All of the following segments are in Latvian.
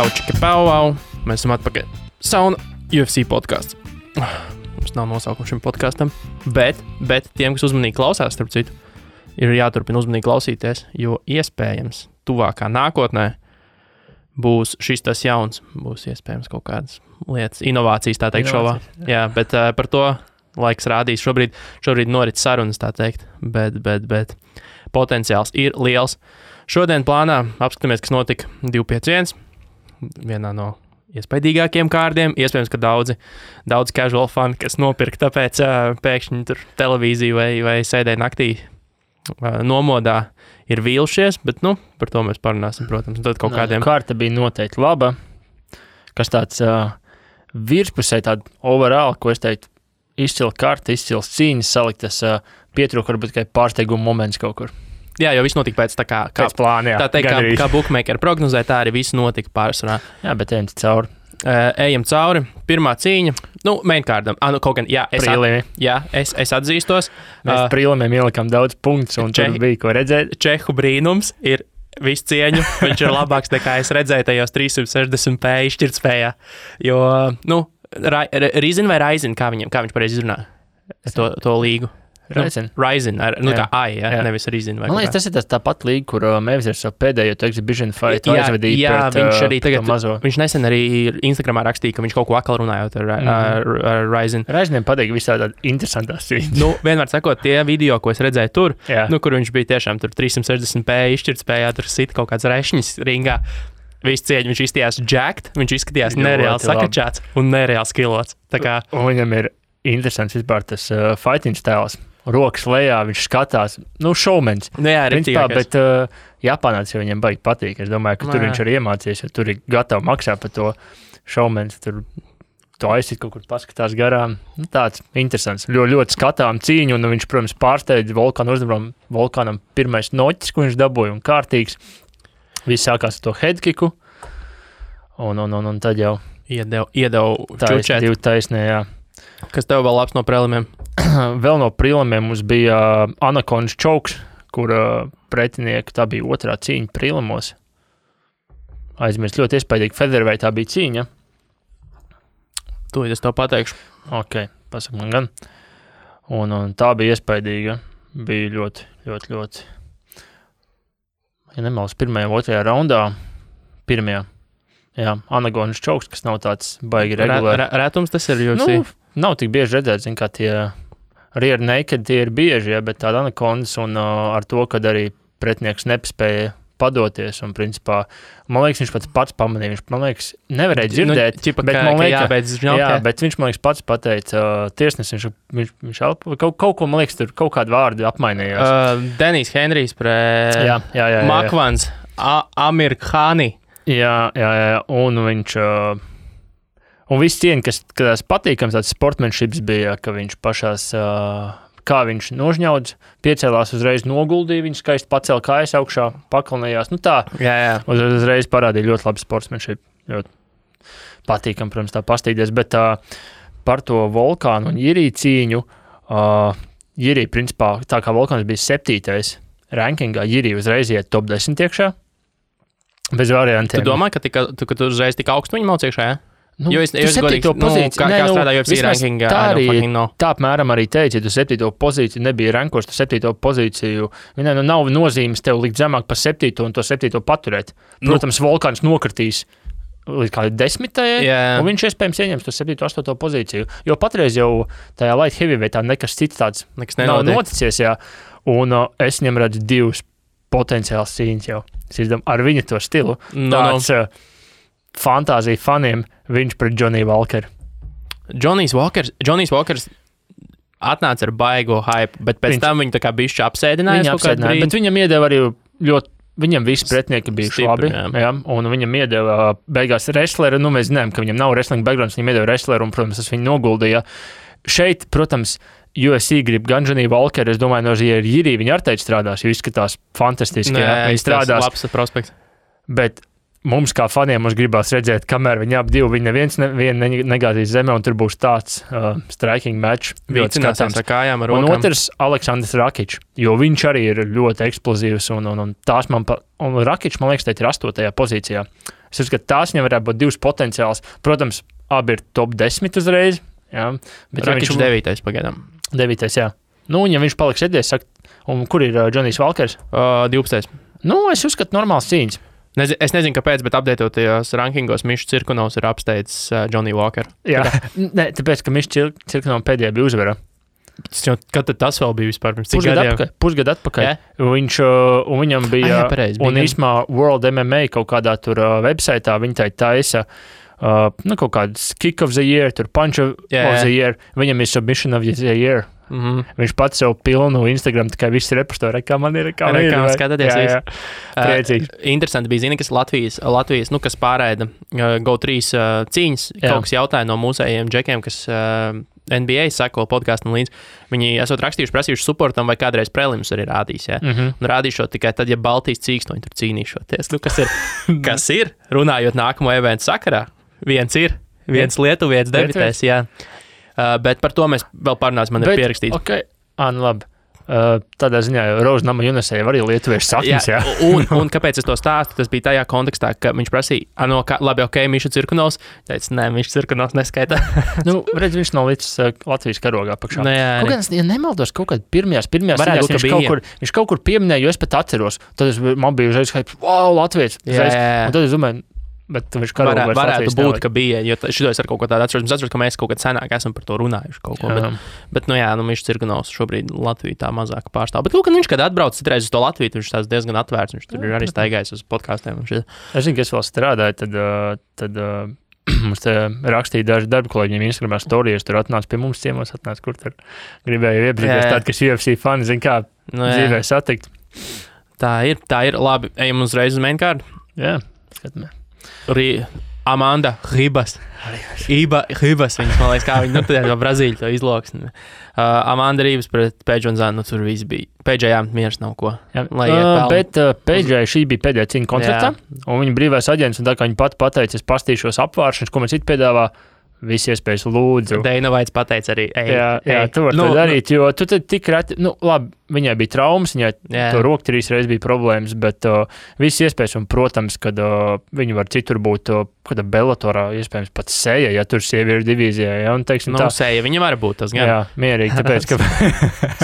Čau, čiki, pau. Mēs esam atpakaļ. Sauna UFC podcasts. Mums nav nosaukuma šim podkastam, bet tiem, kas uzmanīgi klausās, starp citu, ir jāturpina uzmanīgi klausīties, jo iespējams tuvākā nākotnē būs šis tas jauns, būs iespējams kaut kādas lietas, inovācijas, tā teikt, šovā. Jā, bet par to laiks rādīs. Šobrīd norit sarunas, tā teikt, bet potenciāls ir liels. Šodien plānā apskatāmies, kas notika 251, vienā no iespaidīgākiem kārdiem. Iespējams, ka daudz casual fani, kas nopirka, tāpēc pēkšņi tur televīziju vai sēdēja naktī nomodā, ir vīlušies, bet, par to mēs parunāsim, protams. Tad kaut kādiem... Kārta bija noteikti laba, kas tāds virspusē, tāda overall, ko es teiktu, izcila karta, izcils cīņas saliktas, pietrūka varbūt tikai pārsteiguma moments kaut kur. Jā, jo viss notika pēc tā kā plāna, jā. Tā teikt, kā bookmaker prognozē, tā arī viss notika pārsvarā. Jā, bet ejam cauri. Ejam cauri. Pirmā cīņa, mainkārdam. Kaut gan, jā, es atzīstos. Mēs prīlimiem ielikām daudz punktus, un tur bija ko redzēt. Čehu brīnums ir visu cieņu. Viņš ir labāks nekā es redzēju tajos 360p izšķirtspējā. Jo, Rizin vai Raizin, kā viņš pareizi izrunā to līgu? Ryzen, kā AI, nevis Rizin. Man liekas, tas ir tāpat līga, kur Mavs ir savu pēdējo exhibition fight aizvedīja pret viņš arī tagad, mazo. Viņš nesen arī Instagramā rakstīja, ka viņš kaut ko akal runājot ar Ryzen. Ryzeniem patīk visā tāda interesantās cīņas. Vienmēr sakot, tie video, ko es redzēju tur, kur viņš bija tiešām tur 360p izšķirtspējā, tur sit kaut kāds rešņis ringā. Visu cieņu, viņš izskatījās jacked, viņš izskatījās nereāli sakačāts un nereāli skilots. Un viņam ir interesants vispār tas fighting stēls. Rokas lejā, viņš skatās, šovmens. Jā, bet Japānā tas jau viņam baigi patīk. Es domāju, ka tur viņš arī iemācījies, jo tur ir gatavi maksāt par to šovmens. Tur to aiziet kaut kur paskatās garām. Tāds interesants, ļoti skatām cīņu, un viņš, protams, pārsteidz Volkānu uzdevumu. Volkānam pirmais noķis, ko viņš dabūja, un kārtīgs. Viss sākās ar to headkicku, un tad jau iedeva čučēt. Divi taisnē, jā. Kas tev vēl labs no prelimiem? Vēl no prelimiem mums bija Anakondas čauks, kur pretinieki, tā bija otrā cīņa prelimos. Aizmirst ļoti iespaidīgi, featherweight tā bija cīņa. Tūlīt es tev pateikšu. Ok, pasak man gan. Un tā bija iespaidīga. Bija ļoti. Ja nemaldos, pirmajā, otrajā raundā. Pirmajā. Jā, Anakondas čauks, kas nav tāds baigi regulāri. Rētums tas ir UFC? Nav tik bieži redzēt, kā tie rear naked, tie ir bieži, bet tāda Anakondas un ar to, kad arī pretinieks nespēja padoties un principā, man liekas, viņš pats pamanīja, viņš, man liekas, nevarēja dzirdēt, bet viņš, man liekas, pats pateica tiesnesis, viņš kaut ko, man liekas, tur kaut kādu vārdu apmainījās. Denis Henrijs pret Makvans, Amir Khani. Jā, un viņš... Un viss cieņa, kas patīkams tāds sportsmanships bija, ka viņš pašās, kā viņš nožņaudz, piecēlās uzreiz noguldīja, viņš skaisti pacēla kājas augšā, pakalnējās, tā. Jā. Uzreiz parādīja ļoti labi sportsmanship, ļoti patīkam, protams, tā pastīties, bet par to Volkānu un Jirī cīņu, Jirī, principā, tā kā Volkāns bija 7. rankingā, Jirī uzreiz iet top 10 iekšā, bez variantiem. Tu domā, ka tu uzreiz tik augstu viņi mauc iekšā, jā? Jo es godīgi, pozīciju, kā strādā UFC rankingā, tā apmēram arī teica, ja tu 7. pozīciju nebija rankos, tu 7. pozīciju, nav nozīmes tev likt zemāk par 7. un to 7. paturēt. Protams, Volkāns nokritīs līdz kādi 10. Un viņš iespējams ieņems to 7. 8. pozīciju, jo patreiz jau tajā light heavyweightā nekas cits tāds nav noticies, jā. Un es viņam redzu divus potenciāls cīņas jau. Ar viņa to stilu. Tāds fantāzija faniem, viņš pret Johnny Walker. Johnny's Walkers atnāca ar baigo hype, bet pēc tam viņu tā kā bišķi apsēdināja. Bet viņam iedeva arī ļoti, viņam visi pretinieki bija labi, jā, un viņam iedeva beigās wrestleru, mēs zinām, ka viņam nav wrestling backgrounds, viņam iedeva wrestleru, un, protams, tas viņu noguldīja. Šeit, protams, UFC grib gan Johnny Walker, es domāju, no Jirī viņi ar teici strādās, jo izskatās fantastiski, viņi strādās. Labs prospekts. Bet mums kā faniem mums gribās redzēt, kamēr viņi ap divi, viņi neviens negāzīs zemē, un tur būs tāds striking match. Vīcinās ar kājām, ar rokām. Un otrs Aleksandrs Rakičs, jo viņš arī ir ļoti eksplozīvs, un tās un Rakičs, man liekas, teikt ir 8. pozīcijā. Es uzskatu, tās viņam varētu būt divas potenciāls. Protams, abi ir top 10 uzreiz. Jā, bet Rakičs 9. pagaidām. 9. jā. Nu, un ja viņš paliks sēdēs, saka, un kur ir Džonijs Valkers? 12. Nu, es uzskatu normāls cīņas. Es nezinu, kāpēc, bet apdeitotajos rankingos Mišs Cirkunovs ir apsteidzis Johnny Walker. Jā, ne, tāpēc, ka Mišs Cirkunovs pēdējā bija uzvara. Kad tas vēl bija vispār pirms cik gadiem? Pusgadu atpakaļ. Yeah. Un viņam bija, pareizi, un īsmā World MMA kaut kādā tur websaitā viņi tai taisa kaut kāds kick of the year, tur punch of the year, viņam ir submission of the year. Viņš pats sev pilnu Instagram, tikai viss repostorē, kā man ir, kā man ir. Skatāties visu. Priecīgs. Interesanti bija, zini, kas Latvijas, kas pārēda GO3 cīņas, kaut kas jautāja no mūsējiem džekiem, kas NBA sako podkāstam līdz. Viņi esot prasījuši supportam vai kādreiz prelims arī rādīs, ja? Un rādīšot tikai tad, ja Baltijas cīkstoņi tur cīnīšoties. Nu, kas ir, runājot nākamo eventu sakarā, viens lietuvietis debitēs, jā. Bet par to mēs vēl parunāsim, man ir pierakstīts. Okay. Nu labi. Tādā ziņā Rožnama Junesē arī lietuviešu saknes, jā. Un kāpēc es to stāstu? Tas bija tajā kontekstā, ka viņš prasīja, labi, Miša Cirkunovs. Teica, nē, Miša Cirkunovs neskaitā. Redz, viņš nav līdz Latvijas karogā pakšā. Kaut kāds, ja nemaldos, kaut kād pirmajās viņš kaut kur pieminēja, jo es pat atceros. Tad man bija uzreiz, wow, Latvijas. Un tad es domāju, bet viņš varētu būt, ka bija, jo šito es ar kaut ko tādu atceros. Es atceros, ka mēs kaut kad senāk esam par to runājuši kaut ko. Bet Mišs Cirkunovs šobrīd Latviju tā mazāk pārstāv. Bet viņš, kad atbrauc citreiz uz to Latviju, viņš tās diezgan atvērts. Viņš tur ir arī staigājis uz podkāstiem. Es zinu, ka es vēl strādāju, tad mums te rakstīja daži darba kolēģiem Instagramā storijas, tur atnāca pie mums ciemos, kur tur gribēja iepazīties tādi, kas UFC fani, zin kā dzīvē satikt. Tā ir. Labi, ejam uzreiz uz mainkārdu. Jā, skatāmies. Amanda Ribas. Ribas, viņas, man liekas, kā viņa, no Brazīļa to izloksni. Amanda Ribas pret Peidžu un Zanu, tur viss bija. Peidžai miers nav ko. Bet Peidžai šī bija pēdējā cīņa koncertā, un viņa brīvais aģents, un tā kā viņa pat pateica, es pastīšos apvāršanas, ko man citi piedāvā, visi iespējas lūdzu. Deina Vaits pateica arī, Jā, tu vari to darīt, jo tu tad tik reti, labi, viņai bija traumas, viņai to roku 3 reizes bija problēmas, bet visi iespējas, un, protams, kad viņi var citur būt, kādā Bellatorā, iespējams, pat Seja, ja tur sieviešu divīzijā, ja, un teiksim tā. Seja, viņa var būt tas gan. Jā, mierīgi, tāpēc, ka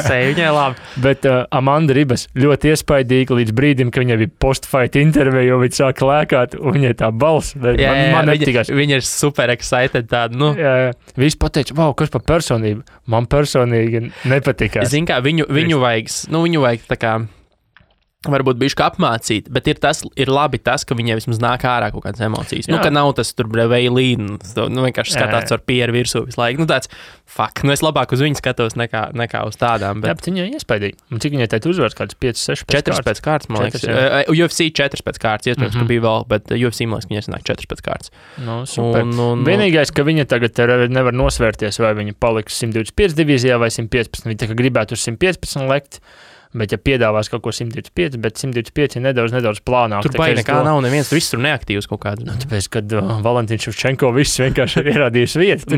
Seja, viņai labi. Bet Amanda Ribas ļoti iespaidīga līdz brīdim, ka viņai bija post-fight intervija, jo viņa sāka lēkāt, un viņai tā balss, man nepatīkās. Viņa ir super excited tāda, Jā. Visi pateica, wow, kas par personību? Man personīgi nepatikās. Zin kā, viņu vajag tā kā, varbūt bišķi apmācīt, bet ir labi tas, ka viņai vismaz nāk ārā kaut kādas emocijas. Ka nav tas tur veilīn, vienkārši skatās ar pieru virsū visu laiku. Tāds, es labāk uz viņu skatos nekā uz tādām. Bet viņa iespaidīga. Un cik viņai teikt uzvars, kāds 5-6 pēc kārtas, man liekas. UFC 4 pēc kārtas, iespējams, ka bija vēl, bet UFC, man liekas, viņa sanāk 4 pēc kārtas. Super. Vienīgais, ka viņa tagad nevar nosvērties, vai viņa paliks 125 divīzijā vai 115. Viņa tā kā gribētu uz 115 lekt. Bet, ja piedāvās kaut ko 125, bet 125 ir nedaudz plānāk. Tur baigi nekā nav, neviens tur viss tur neaktīvs kaut kāds. Tāpēc, kad Valentīns Ševčenko viss vienkārši ir ierādījis vietu.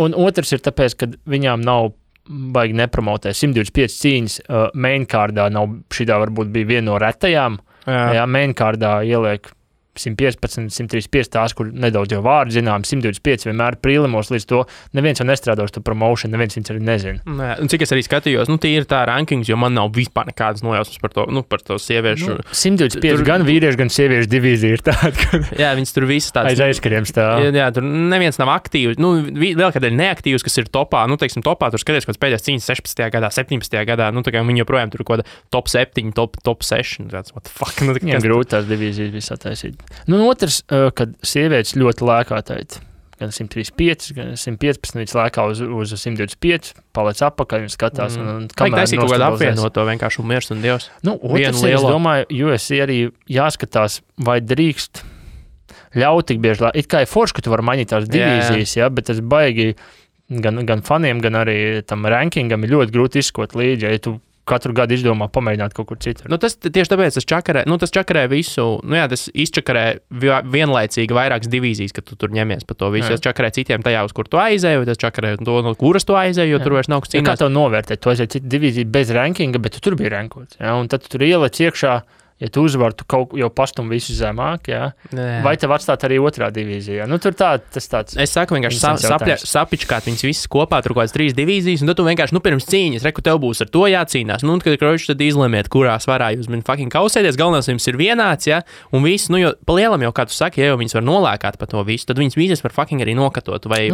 Un otrs ir tāpēc, ka viņām nav baigi nepromotē. 125 cīņas mainkārdā nav, šitā varbūt bija viena no retajām. Jā, mainkārdā ieliek 115, 135 tās, kur nedaudz jau vārdi zinām, 125 vienmēr prīlimos līdz to. Neviens jau nestrādā uz to promotion, neviens viņus arī nezina. Un cik es arī skatījos, tie ir tā rankings, jo man nav vispār nekādas nojausmas par to sieviešu. 125 gan vīriešu, gan sieviešu divīzija ir tāda, ka... Jā, viņas tur visas tādas... Aiz aizkariem stāv. Jā, tur neviens nav aktīvs. Vēl kādēļ neaktīvs, kas ir topā, topā, tur skaties, kāds pēdējās cīņas 16. gadā, 17. gadā, tā kā viņi joprojām tur kaut kāda top 7, top 6. Tāds, what the fuck? Viņam grūti tās divīzijas viss attaisīt. Otrs, kad sievietes ļoti lēkā teikt, gan 135, gan 115, viņas lēkā uz 125, paliec apakaļ un skatās. Vajag taisīt kaut kādu apvienot to vienkārši miers un dievs. Otrs, es domāju, UFC arī jāskatās, vai drīkst ļaut tik bieži, it kā ir forši, ka tu vari mainīt tās divīzijas, bet tas baigi gan faniem, gan arī tam rankingam ir ļoti grūti izskot līdzi, ja tu katru gadu izdomā pamēģināt kaut kur citur. Tas tieši tāpēc tas čakarē visu, tas izčakarē vienlaicīgi vairākas divīzijas, ka tu tur ņemies par to visu. Tas čakarē citiem tajā, uz kur tu aizēji, tas čakarē to, no kuras tu aizēji, jo tur vairs nav kas cīnās. Kā tev novērtēt? Tu aizēji citu divīziju bez rankinga, bet tu tur biji rankots. Un tad tu tur ieliec iekšā ja tu uzvari, tu kaut jau pastum visu zemāk, jā. Vai tev atstāt arī otrā divīzijā? Nu, tur tas tāds... Es saku vienkārši sapičkāt viņas visas kopā, tur kaut kāds 3 divīzijas, un tad tu vienkārši, pirms cīņas, reku, tev būs ar to jācīnās. Nu, un kad kročs tad izlemiet, kurā svarā jūs fucking kausēties, galvenais jums ir vienāds, jā, un viss, nu, jo pa lielam jau, kā tu saki, ja jau viņas var nolēkāt pa to visu, tad viņas visas var fucking arī nokatot, vai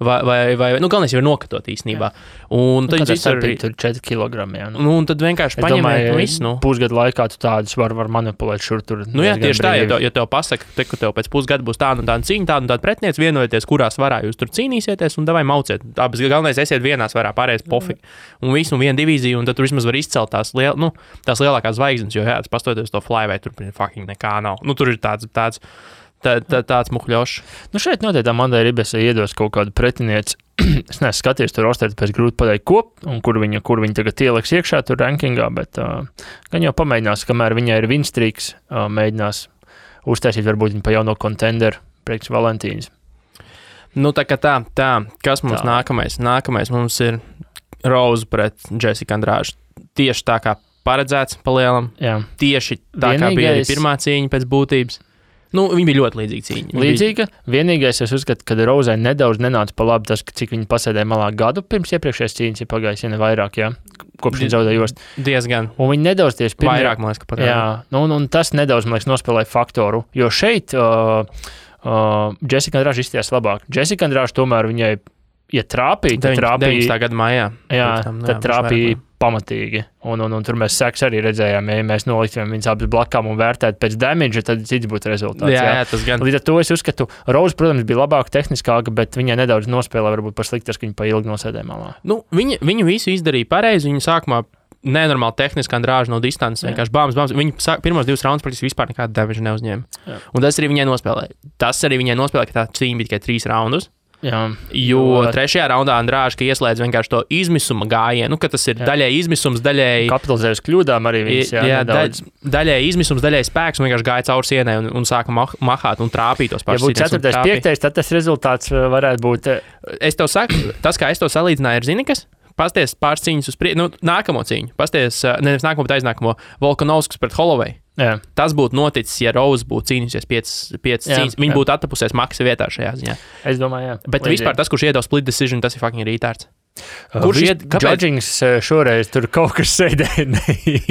galvenais jau ir nokatot īstenībā. Un tad viņas arī... Tur 4 kilogrami, jā. Nu, un tad vienkārši paņemiet visu, nu. Pusgadu laikā tu tādus var manipulēt šur tur. Nu jā, tieši tā, ja tev pasaka, ka tev pēc pusgada būs tāda un tāda cīņa, tāda un tāda pretiniec, vienojoties, kurā svarā jūs tur cīnīsieties, un davai mauciet. Abas galvenais esiet vienā svarā, pārējais pofīgi. Un visu, un viena divīzija, un tad tur vismaz var izcelt tās lielākās zvaigznes, jo jā, tas pastoties to flyweight, tur fucking nekā nav. Nu, tur ir tāds muhļošs. Nu, šeit noteikti Amandai Ribesai iedos kaut kādu pretinieci. Es neesmu skatījies tur rosteri, pēc grūti pateikt kop, un kur viņa tagad ieliks iekšā tur rankingā, bet gan jau pamēģinās, kamēr viņai ir winstreaks, mēģinās uztaisīt varbūt viņa pa jauno kontenderu priekš Valentīnas. Nu, tā, kas mums nākamais? Nākamais mums ir Rose pret Jessica Andrade. Tieši tā kā paredzēts pa lielam. Jā. Tieši tā kā bija arī pirmā cīņa pēc būtības. Nu, viņa bija ļoti līdzīga cīņa. Līdzīga. Vienīgais, es uzskatu, ka Rozai nedaudz nenāca pa labi tas, cik viņa pasēdēja malā gadu pirms iepriekšējās cīņas ir pagājis, ja ne vairāk, jā. Kopš viņa zaudēja jostu. Diezgan. Un viņa nedaudz tieši pirmie... Vairāk, man liekas, ka pagāja. Jā, un tas nedaudz, man liekas, nospēlēja faktoru, jo šeit Jessica Andrade izstījās labāk. Jessica Andrade tomēr viņai, ja trāpīja, tad trāpīja... 19. gada maijā. Jā, tad trāpīja pamatīgi. Un tur mēs seks arī redzējām, ja mēs noliktām viņas abas blakām un vērtētu pēc damage, tad cits būtu rezultāts. Jā, tas gan. Līdz ar to es uzskatu, Rose, protams, bija labāka, tehniskāka, bet viņai nedaudz nospēlē varbūt par sliktas, ka viņa pa ilgi nosēdēja malā. Nu, viņa visu izdarīja pareizi, viņa sākumā nenormāli tehniski Andrade no distances, vienkārši bāmas. Viņa pirmos 2 raundus praktiski vispār nekādu damage neuzņēma. Jā. Un tas arī viņai nospēlēja. Ka tā cīņa bija tikai 3 raundus. Jā, jo 3. raundā Andrade ieslēdz vienkārši to izmisuma gājienu, ka tas ir daļai izmisums, daļai... Kapitalizējas kļūdām arī viņas, daļai izmisums, daļai spēks, un vienkārši gāja caur sienai un sāka mahāt un trāpīt tos pašus. Ja būtu 4. 5. tad tas rezultāts varētu būt... Es tev saku, tas, kā es to salīdzināju, ir zini kas? Pasties pāris cīņas uz nākamo cīņu. Pasties, nevis nākamo, bet aiznākamo Volkanovskis pret Holloway. Jā. Tas būtu noticis, ja Rose būtu cīnījusies 5 cīņas. Viņa būtu attapusies maksa vietā šajā ziņā. Es domāju, jā. Bet vispār tas, kurš iedod split decision, tas ir fucking rītārds. Kurš judgings šoreiz tur kaut kas sēdēja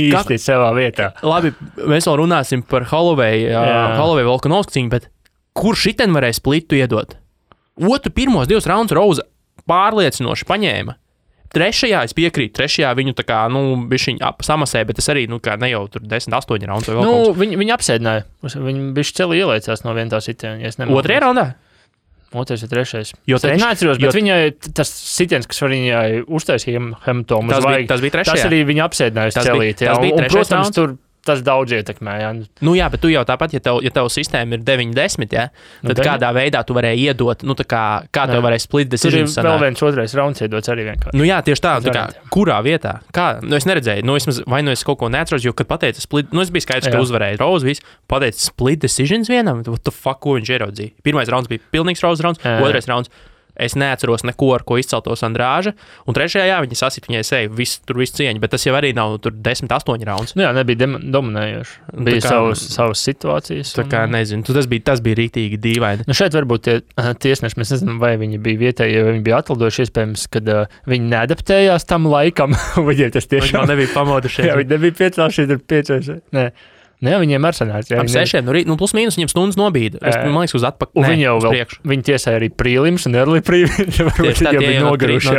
īsti savā vietā. Labi, mēs vēl runāsim par Holloway Volkanovski cīņu, bet kurš šiten varēja splitu iedot? Pirmos 2 raundus Rose pārliecinoši paņēma. 3. es piekrītu, 3. viņu tā kā, bišķiņ samasēja, bet tas arī, ne jau tur 10-8 raundus vai vēl kaut kas. Viņi apsēdināja, viņi bišķi celi ielaicās no viena tā sitiena, ja es nemaldos. 2. raundā? 2. vai 3. Jo es neatceros, bet viņai tas sitiens, kas viņai uztaisīja hematomu uz vajag, tas bija 3. Tas arī viņa apsēdināja uz celīt. Tas bija 3. Protams, tur tas daudz ietekmē. Jā. Nu jā, bet tu jau tāpat, ja tev sistēma ir 9-10, ja, tad kādā veidā tu varēji iedot, kā tev varēja split decision sanāk. Tur ir vēl viens 2. rauns iedots arī vienkārši. Nu jā, tieši tā kā, kurā vietā? Kā? Es neredzēju, vai es kaut ko neatceros, jo, kad pateica split, es biju skaidrs, ka uzvarēja Rose, viss, pateica split decisions vienam, what the fuck, ko viņš ieraudzīja. 1. rauns bija pilnīgs Rose rauns, 2. rauns. Es neatceros neko, ar ko izceltos Andrade. Un 3. viņai sasita viņai seju, tur viss cieņa, bet tas jau arī nav tur 10-8 rauns. Nu jā, nebija dominējoši. Bija savas situācijas. Tā kā nezinu, tas bija rītīgi dīvaini. Nu šeit varbūt tie tiesneši, mēs nezinām, vai viņi bija vietēji, ja viņi bija atlidojuši iespējams, kad viņi neadaptējās tam laikam. Viņiem tas tiešām nebija pamodušies. Jā, viņi nebija piecēlušies ar 5. Nē. Nē, viņiem ir sanāca. Ap 6, plus mīnus viņiem stundas nobīda. Man liekas, uz atpakaļ. Viņi jau vēl, viņi tiesāja arī prīlims un early prīlims. Tieši tā, tie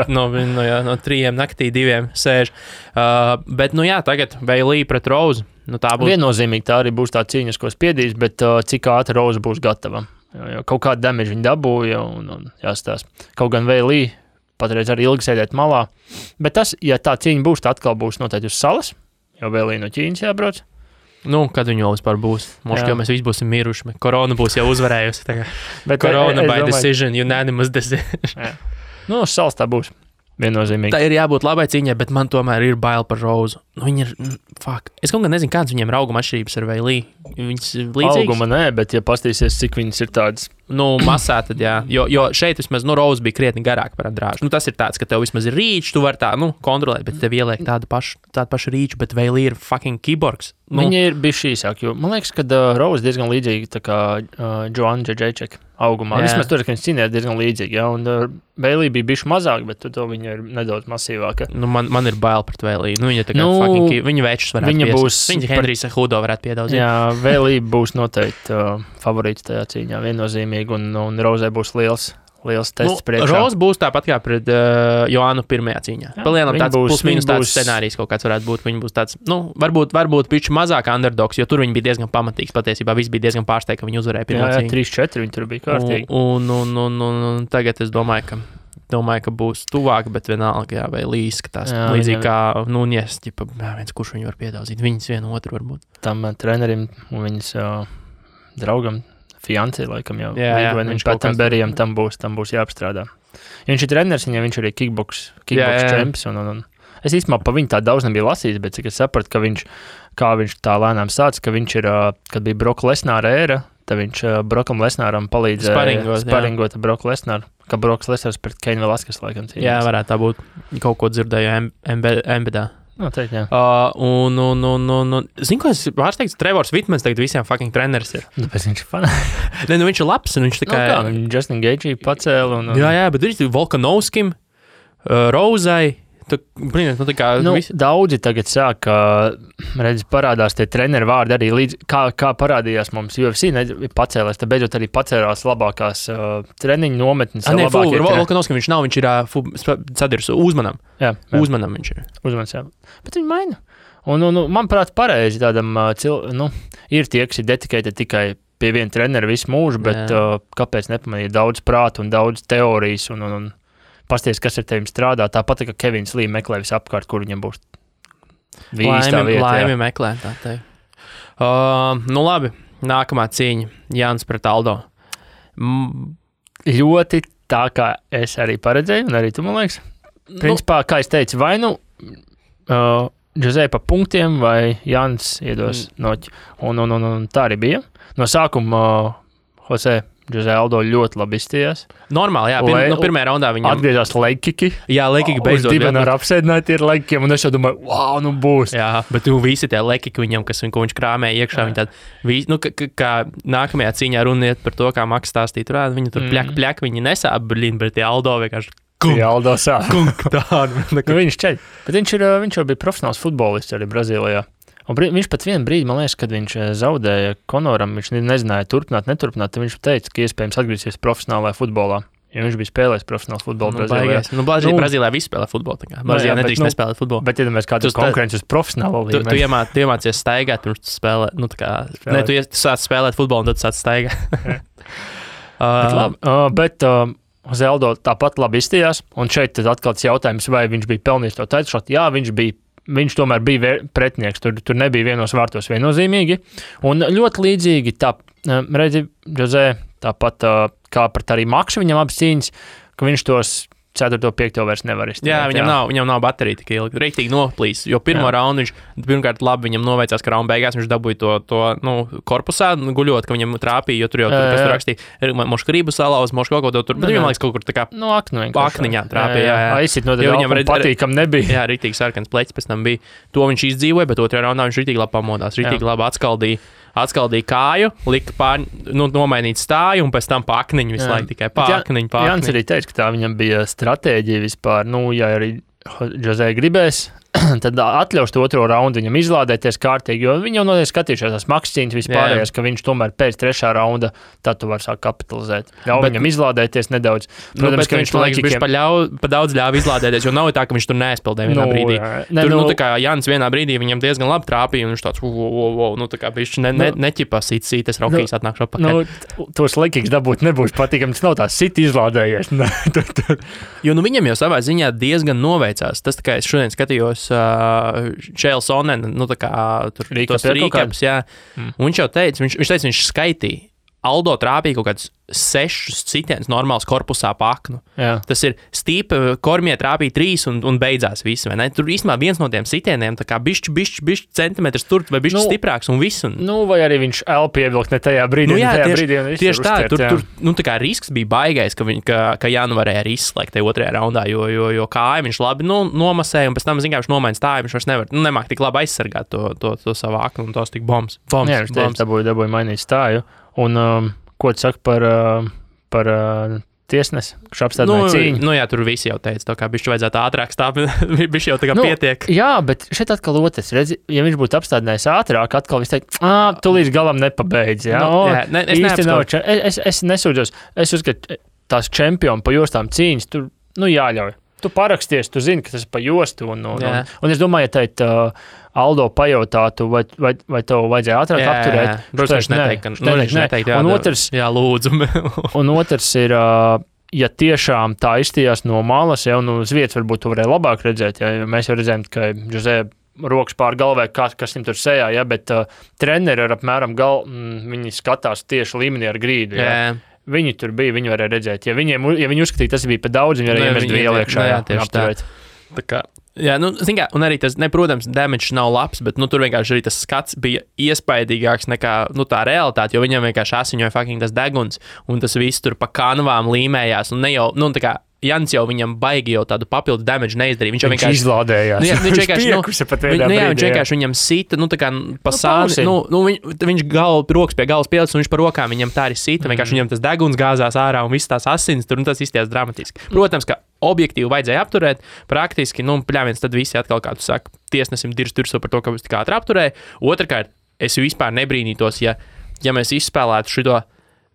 no 3 naktī 2 sēž. Bet, tagad Bailey pret Rose. Tā būs. Viennozīmīgi tā arī būs tā cīņas, ko spiedīs, bet cik ātri Rose būs gatava. Jo kaut kādu damage viņi dabūja un jāstās. Kaut gan Bailey patreiz arī ilgi sēdēt malā. Bet tas, ja tā cīņa būs, tā atkal būs noteikti uz salas, jo Bailey no Ķīnas jābrauc. Kad viņi vēl vispār būs? Možda, jau mēs visi būsim miruši. Korona būs jau uzvarējusi. Korona by decision, unanimous decision. Uz salas tā būs. viennozīmīgi. Tā ir jābūt labai cīņai, bet man tomēr ir bail par Rozu. Nu, viņi ir, fuck. Es kaut kā nezinu, kāds viņiem ir auguma atšķirības ar Veilī. Viņas līdzīgas. Auguma nē, bet ja pastīsies, cik viņas ir tādas. Nu, masā tad, jā. Jo šeit vismaz, Roza bija krietni garāk par Andrāžu. Nu, tas ir tāds, ka tev vismaz ir rīčs, tu vari tā, kontrolēt, bet tev ieliek tādu pašu rīču, bet Veilī ir fucking kiborgs. Nu. Viņi ir bijuši īsāk, jo man liekas, ka Roza diezgan līdzīga tā kā Joanna Džedžečeka augumā. Vismaz tur, ka viņas cīnījās diezgan līdzīgi, jā, un Veilī bija bijuši mazāk, bet to viņa ir nedaudz masīvāka. Nu, man ir bail pret Veilī. Nu, viņa tā kā fucking, viņa večus varētu viņa Henrijsa Hudo varētu piedaudzīt. Jā, Veilī būs noteikti favorīts tajā cīņā, viennozīmīgi, un Rozai būs liels tests priekšā. Roza būs tāpat kā pret Joannu pirmajā cīņā. Palielam tāds plus-minus tāds scenārijs kaut kāds varētu būt. Viņa būs tāds, varbūt piču mazāk underdogs, jo tur viņi bija diezgan pamatīgs. Patiesībā viss bija diezgan pārsteigts, ka viņi uzvarēja pirmo cīņu. 3-4 viņi tur bija kārtīgi. Un tagad es domāju, ka būs tuvāk, bet vienalga, jā, vai izskatās līdzīgi kā Nunes, viens, kurš viņu var piedaudzīt. Viņas vienu otru varbūt. Tam trenerim un viņas draugam fiancē, laikam jau. Viņš Patenberijam tam būs jāapstrādā. Ja viņš ir treneris, viņam viņš arī kickboks čemps. Un es īstenībā pa viņu tā daudz nebija lasījis, bet cik es sapratu, kā viņš tā lēnām sāca, ka viņš ir, kad bija Broka Lesnāra ēra, tad viņš Brokam Lesnāram palīdzēja sparingot Broku Lesnāru, ka Broks Lesnārs pret Keinu Velaskas laikam cīnījās. Jā, varētu tā būt. Kaut ko dzirdēju embedā. Noteikti, jā. Zinu, ko es pārsteigts, Trevors Vitmans tagad visiem fucking treneris ir. Tāpēc viņš ir fanāts. Viņš ir labs, un viņš tā kā... Justin Gaethje pacēla un... Jā, bet viņš ir Volkanovskim, Rozai, daudzi tagad sāk, parādās tie treneri vārdi arī līdz, kā parādījās mums UFC, pacēlēs, tad beidzot arī pacēlās labākās treniņu nometnes. Volkanovskim viņš nav, viņš ir sadirs Uzmanam. Jā. Uzmanam viņš ir. Uzmans, jā. Bet viņi maina. Un manuprāt, pareizi tādam, ir tie, kas ir dedicated tikai pie viena trenera visu mūžu, bet kāpēc nepamanīt daudz prātu un daudz teorijas un pasties, kas ar tevim strādā, tāpat, ka Kevins Lī meklē visu apkārt, kur viņam būs vīstā vieta. Laimi meklē, tā teikt. Labi, nākamā cīņa, Jānis pret Aldo. Ļoti tā, kā es arī paredzēju, un arī tu, man liekas. Principā, kā es teicu, vai Jose pa punktiem, vai Jānis iedos noķi. Un tā arī bija. No sākuma Jose Aldo ļoti labi izstījās. Normāli, jā. Pirmajā raundā viņam... Atgriezās leikiki. Jā, leikiki beidzot. Divi ar apsēdināti ir leikikiem, un es jau domāju, wow, būs. Jā, bet visi tie leikiki viņam, ko viņš krāmēja iekšā, viņi tādi, kā nākamajā cīņā runiet par to, kā Maks stāstīja, viņi tur pļak, viņi nesāp, bet tie Aldo vienkārši... Aldo sāp. Viņš ceļ. Bet viņš jau bija profesionāls futbolists arī Brazīlijā. Un viņš pat vienu brīdi, man liekas, kad viņš zaudēja Konoram, viņš nezināja neturpināt, tad viņš teica, ka iespējams atgriezīsies profesionālajā futbolā. Jo viņš bija spēlējis profesionālu futbolu Brazīlijā. Brazīlijā viss spēlē futbolu. Brazīlijā nedrīkst nespēlēt futbolu. Bet, ja kāds ir konkurence uz profesionālo līmeni. Tu iemācies staigāt, pirms tu spēlē. Tu sāc spēlēt futbolu, un tad sāc staigāt. Bet Zeldo tāpat labi izstījās. Un šeit tad atkal tas jautājums, vai viņš bija pelnījis to taitšotu. Jā, viņš tomēr bija pretinieks, tur nebija vienos vārtos viennozīmīgi. Un ļoti līdzīgi redzi, Jose, tāpat kā pret arī Maksu viņam abas cīņas, ka viņš tos 4. 5. vairs nevar izturēt. Jā, viņam nav baterija tik ilgi. Rīktīgi noplīs, jo pirmo raundu viņš pirmkārt labi viņam noveicās, ka raunda beigās viņš dabūja to korpusā guļot, ka viņam trāpīja, jo tur jau kas tur rakstīja, mošku rību salauz, mošku kaut ko tur, bet viņam liekas kaut kur tā kā akniņā trāpīja. Aizsit no tad viņam patīkam nebija. Jā, rīktīgi sarkans pleķis pēc tam bija. To viņš izdzīvoja, bet otrajā raundā viņš rīktīgi labi pamodās, rīktīgi labi atskaldīja kāju, lika nomainīt stāju un pēc tam pa akniņu visu laiku tikai pa akniņu. Jānis arī teica, ka tā viņam bija stratēģija vispār, ja arī Jose gribēs, tad atļaus to otro raundu viņam izlādēties kārtīgi, jo viņi jau noteikti skatījušies tās makscīņas vispārējās, ka viņš tomēr pēc 3. raunda, tad tu var sākt kapitalizēt. Viņam izlādēties nedaudz. Protams, ka viņš liekas, pa daudz ļāva izlādēties, jo nav tā, ka viņš tur neaizpildēja vienā brīdī. Tā kā Jānis vienā brīdī viņam diezgan labi trāpīja, un viņš tāds, tā kā viņš neķipā sītas raukīs atnākšu apakaļ. Tos lekīgs dabūt nebūs patīkami, tas nav tā sit izlādējies. Jo viņam jau savā ziņā diezgan noveicās. Tas, kā es šodien skatījos Čēls Onen, tā kā tur tos rīkaps, jā. Un viņš jau teica, viņš skaitīja. Aldo trāpīja kaut kādus 6 sitienus normāls korpusā pa aknu. Jā. Tas ir Stīpa, Kormie trāpīja 3 un beidzās viss, vai ne? Tur īstenībā viens no tiem sitieniem, tā kā bišķi centimetrs tur vai bišķi stiprāks un viss. Un... Nu, vai arī viņš elpu ievilkt ne tajā brīdī, tieši tā, tur tā kā risks bija baigais, ka Jānu varēja arī izslēgt tajā otrajā raundā, jo kāja viņš labi nomasēja, un pēc tam, zin kā, viņš nomaina stāju, viņš vairs nevar, nemāk tik labi aizsargāt to savu aknu, un tos tik bombs. Jā, viņš dabūja mainīt stāju. Un ko tu saki par tiesnesi, kurš apstādināja cīņu? Nu jā, tur visi jau teica, tā kā bišķi vajadzētu ātrāk stāvēt, bišķi jau tā kā pietiek. Jā, bet šeit atkal otrs, redzi, ja viņš būtu apstādinājis ātrāk, atkal viņš teikt, tu līdz galam nepabeidz, jā? Es nesūdzos, es uzskatu, tās čempioni pa jostām cīņas, tur, jāļauj. Tu paraksties, tu zini, ka tas ir pa jostu, un es domāju, ja teikt, Aldo pajautātu, vai tev vajadzēja ātrāk apturēt. Protams, neteikt, un otrs, jā, lūdzu. Un otrs ir, ja tiešām tā izstījās no malas, ja, un uz vietas varbūt tu varēja labāk redzēt, ja mēs jau redzējām, ka Jose rokas pār galvē, kas viņam tur sejā, ja, bet treneri ar apmēram viņi skatās tieši līmenī ar grīdu. Ja. Viņi tur bija, viņi varēja redzēt. Ja viņi uzskatīja, tas bija pa daudz, viņi varēja iemest vielu iekšā. Jā, tieši tā kā. Jā, zin kā, un arī tas, protams, damage nav labs, bet, tur vienkārši arī tas skats bija iespaidīgāks nekā, tā realitāte, jo viņam vienkārši asiņoja fucking tas deguns, un tas viss tur pa kanvām līmējās, un ne jau, tā kā, Jans jau viņam baigi jau tādu papildu damage neizdarīja. Viņš vienkārši izlādējās. Viņš vienkārši viņam sita, tā kā pa sāni, viņš rokas pie galvas pielicis, un viņš par rokām viņam tā arī sita, vienkārši viņam tas deguns gāzās ārā un viss tās asins tur, un tas izties dramatiski. Protams, ka objektīvi vajadzēja apturēt, praktiski, pļāviens tad visi atkal, kā tu saki, tiesnesim dirstu par to, ka viņš tik ātri apturēja. Otrakārt, es vispār nebrīnītos, ja mēs izspēlētu šito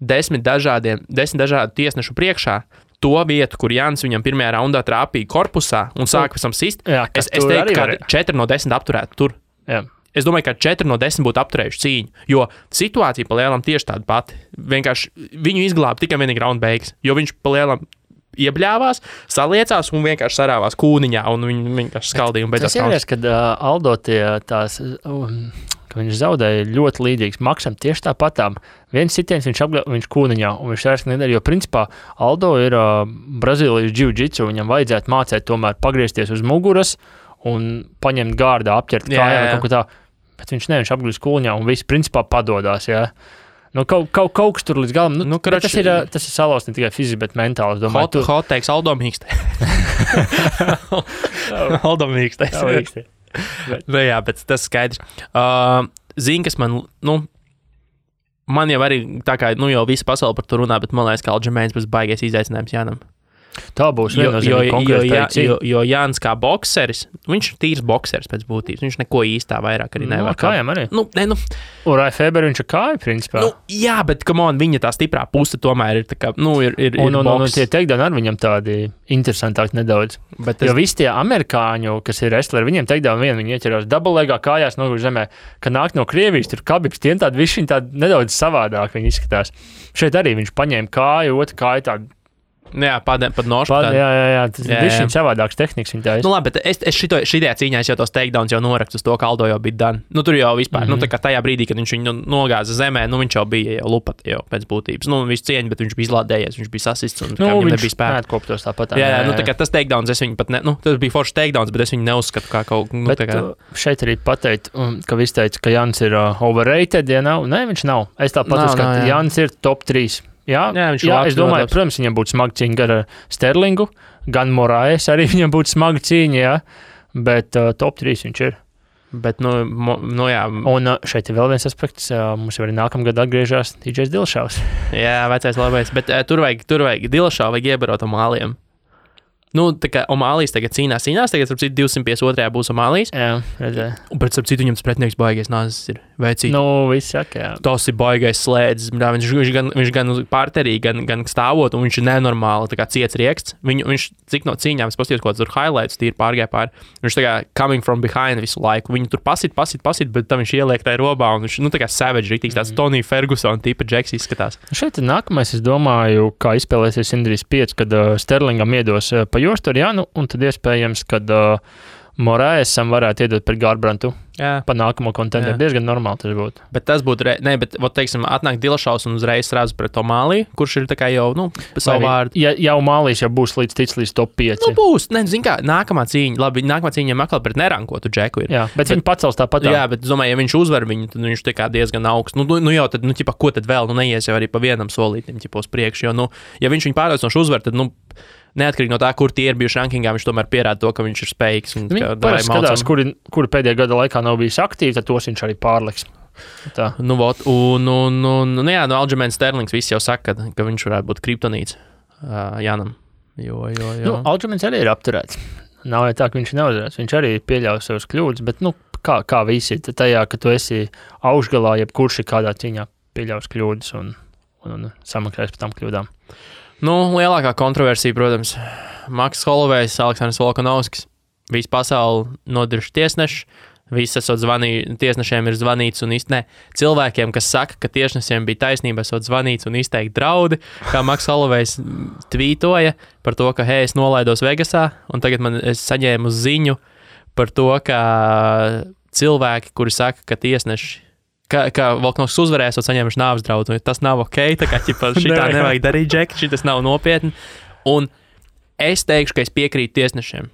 10 dažādu tiesnešu priekšā, to vietu, kur Jānis viņam pirmajā raundā trāpīja korpusā un sāka pēc tam sist, es teiktu, ka 4 no 10 apturētu tur. Jā. Es domāju, ka 4 no 10 būtu apturējuši cīņu, jo situācija pa lielam tieši tāda pati. Vienkārši viņu izglāba tikai vienīgi raunda beigas, jo viņš pa lielam iebļāvās, saliecās un vienkārši sarāvās kūniņā un viņi vienkārši skaldīja un beidzās. Tas ir, kad Aldo tās... Viņš zaudēja ļoti līdzīgs Maksam tieši tāpatām. Viens sitiens viņš kūniņā, un viņš vairs nedara, jo principā Aldo ir Brazīlijas jiu-jitsu, viņam vajadzētu mācēt tomēr pagriezties uz muguras un paņemt gārdā, apķert kājām kaut ko tā, bet viņš apgriež kūniņā un viss principā padodās, jā. Kaut kas tur līdz galam, tas ir salauz ne tikai fiziski, bet mentāli, es domāju. Hot teiks Aldo mīkstē. Aldo mīkstē. Jā, bet tas skaidrs. Zini, kas man jau arī tā kā, jau visa pasaule par to runā, bet man liekas, ka Aljamains būs baigais izaicinājums Jānam. Tā būs viennozīmīgi konkrēta cīņa. Jo Jānis kā bokseris, viņš ir tīrs bokseris pēc būtības, viņš neko īstā vairāk arī nevar. Kājām arī? Urai Feber viņš ir kāja, principā. Jā, bet, come on, viņa tā stiprā puse tomēr ir tā kā, ir un tie takedown ar viņam tādi interesantāki nedaudz. Jo visi tie amerikāņu, kas ir wrestleri, viņiem takedown viņi ieķerās double-legā kājās noguž zemē, ka nāk no Krievijas, tur Kabibs, tiem tādi visi viņi tādi nedaudz savādāk viņi izskatās. Šeit arī viņš paņēma kāju, otru kāju tādu. Jā, pat nošu. Jā, tas ir bišķiņ savādāks tehniks viņa taisa. Labi, bet es šitajā cīņā jau tos takedowns jau norakstu uz to, ka Aldo jau bija done. Tur jau vispār, tā kā tajā brīdī, kad viņš viņu nogāza zemē, viņš jau bija jau lupat jau pēc būtības. Visu cieņu, bet viņš bija izlādējies, viņš bija sasists un viņam nebija spēka. Neatkoptos tāpat. Jā, tā kā tas takedowns, es viņu pat tas bija foršs takedowns, bet es viņu neuzskatu kā kaut šeit arī pateikt, ka viss teica, ka Jans ir overrated, ja nav. Nē, viņš nav. Es tāpat uzskatu, Jans ir top 3. Jā, es domāju, protams, viņam būtu smaga cīņa ar Sterlingu, gan Moraes arī viņam būtu smaga cīņa, jā, bet top 3 viņš ir. Bet, jā. Un šeit ir vēl viens aspekts, mums jau arī nākamgad atgriežās DJs Dilšavs. Jā, vecais labais, bet tur vajag Dilšavu vajag iebarot Omālijam. Tā kā Omālijas tagad cīnās, tagad, starp citu, 252. būs Omālijas. Jā, redzēju. Bet, starp citu, viņam pretinieks baigais nāzes ir veicīt. Viss saka, jā. Tas ir baigais slēdzis. Viņš gan pārterī, gan stāvot, un viņš ir nenormāli, tā kā ciets rieksts. Viņš, cik no cīņām, es paskatījos, ko tur highlights, tīri pārgāja pāri. Viņš tā kā coming from behind visu laiku. Viņu tur pasit, bet tam viņš ieliek tajā robā, un viņš, tā kā savage, rītīgs tāds Tony Ferguson tipa džeks izskatās. Šeit nākamais, es domāju, kā izspēlēsies Indrijas 5, kad Sterlingam iedos pa jostu ar Janu, un tad iespējams, kad Moraesam varētu iedot pret Garbrantu. pa nākamo kontentu. Diezgan normāli tas būtu. Bet tas būtu, teiksim, atnāk Dilašaus un uzreiz srādz pret to Mālī, kurš ir tā kā jau, savu vārdu. Ja jau Mālīs jau būs līdz top 5. Būs, zin kā, nākamā cīņa viņam atkal pret nerankotu džeku ir. Jā, bet viņi pacels tāpat. Jā, bet, domāju, ja viņš uzvar viņu, tad viņš tā kā diezgan augsts. Jau tad, ko tad vēl, neies jau arī pa vienam solītim, uz priekšu, jo, ja viņš viņu pārliecinoši uzvar, tad, neatkarīgi no tā, kur tie ir bijuši rankingā, viņš tomēr pierāda to, ka viņš ir spējīgs. Viņi parasti skatās, kuri pēdējā gada laikā nav bijis aktīvi, tad tos viņš arī pārliks. Tā. Aljamains Sterlings viss jau saka, ka viņš varētu būt kriptonīts Janam. Aljamains arī ir apturēts. Nav jau tā, ka viņš neuzvarēs. Viņš arī pieļauj savus kļūdas, bet, kā visi tajā, ka tu esi augšgalā, jebkurš ir kādā cīņā pieļaus kļūdas un samaksājas par tām kļūdām. Lielākā kontroversija, protams, Maks Holovejs, Aleksandrs Volkanovskis. Visu pasauli nodirž tiesneši. Visi esot tiesnešiem ir zvanīts un cilvēkiem, kas saka, ka tiesnešiem bija taisnība, esot zvanīts un izteikti draudi, kā Maks Holovejs tvītoja par to, ka, hei, es nolaidos Vegasā, un tagad es saņēmu ziņu par to, ka cilvēki, kuri saka, ka tiesneši ka Volkanovskis uzvarēs, un saņēmuši nāves draudu. Tas nav ok, tā kā šitā nevajag darīt, Džek, šitas nav nopietni. Un es teikšu, ka es piekrītu tiesnešiem.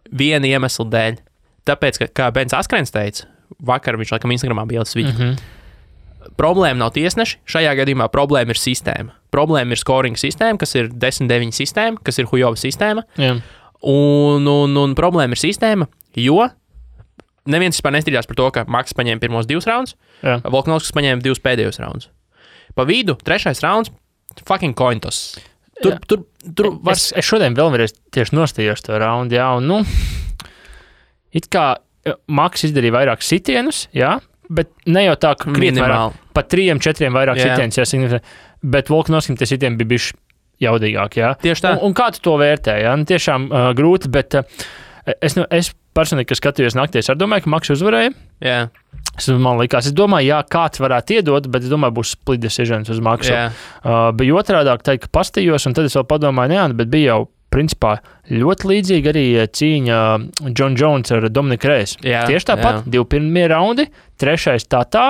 Viena iemesla dēļ. Tāpēc, ka, kā Bens Askrens teica, vakar viņš laikam Instagramā bija ielicis video. Problēma nav tiesneši, šajā gadījumā problēma ir sistēma. Problēma ir scoring sistēma, kas ir 10-9 sistēma, kas ir Hujova sistēma. Jā. Un problēma ir sistēma, jo neviens vispār nestrīdās par to, ka Maks paņēma pirmos 2 raundus, Volkanovskis paņēma 2 pēdējos raundus. Pa vidu, 3. raunds, fucking coin toss. Es šodien vēlreiz tieši nostījos to raundu, un, it kā Maks izdarīja vairāk sitienus, bet ne jau tā, ka krietni vairāk, pa 3-4 vairāk sitienus, bet Volkanovskim tie sitieni bija bišķi jaudīgāk, Tieši tā. Un kā tu to vērtē, tiešām grūti, bet es personīgi, kas skatījos naktī, es domāju, ka Maks uzvarēja. Jā. Man likās, es domāju, kāds varētu iedot, bet es domāju, būs split decisions uz Maksu. Bija otrādāk teikt, ka pastījos, un tad es vēl padomāju, bet bija jau principā ļoti līdzīgi arī cīņa John Jones ar Dominiku Reyes. Tieši tāpat, 2 pirmie raundi, 3. tā,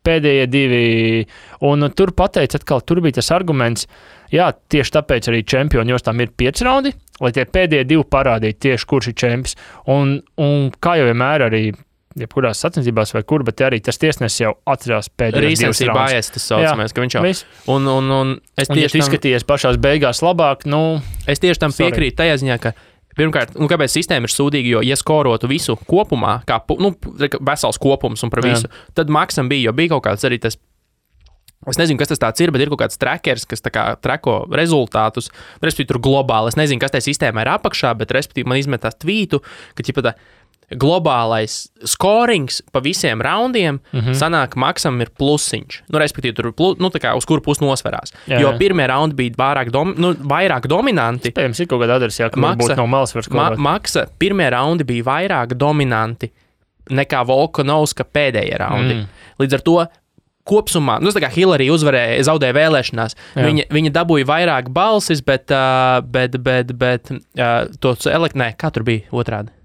pēdējie 2, un tur pateica atkal, tur bija tas arguments, tieši tāpēc arī čempioni, jo tam ir 5 raundi, lai tie pēdējie 2 parādītu tieši, kurš ir čempions. Un kā jau vienmēr arī, jebkurās sacensībās vai kur, bet arī tas tiesnesis jau atcerās pēdējos 2 raundus. Bājies, tas saucamais, ka viņš jau... Un es tieši izskatījies pašās beigās labāk, Es tieši tam piekrītu tajā ziņā, ka pirmkārt, kāpēc sistēma ir sūdīga, jo, ja skorotu visu kopumā, kā vesels kopums un par visu, tad Maksam bija, jo bija kaut kāds arī tas, es nezinu, kas tas tāds ir, bet ir kaut kāds trackers, kas tā kā trako rezultātus, respektīvi tur globāli, es nezinu, kas tajā sistēmā ir apakšā, bet respektīvi man izmetās tvītu, ka, globālais scorings pa visiem raundiem sanāk, Maksam ir plusiņš. Respektīvi, tur tā kā uz kuru pusi nosverās. Jo pirmie raundi bija vairāk dominanti. Spējams, ir kaut kāda adresa, ka varbūt no malas var skorot. Maksa pirmie raundi bija vairāk dominanti nekā Volkanovska pēdējie raundi. Līdz ar to kopsumā, tā kā Hillary zaudēja vēlēšanās, viņa dabūja vairāk balsis, bet kā tur bija otrādi?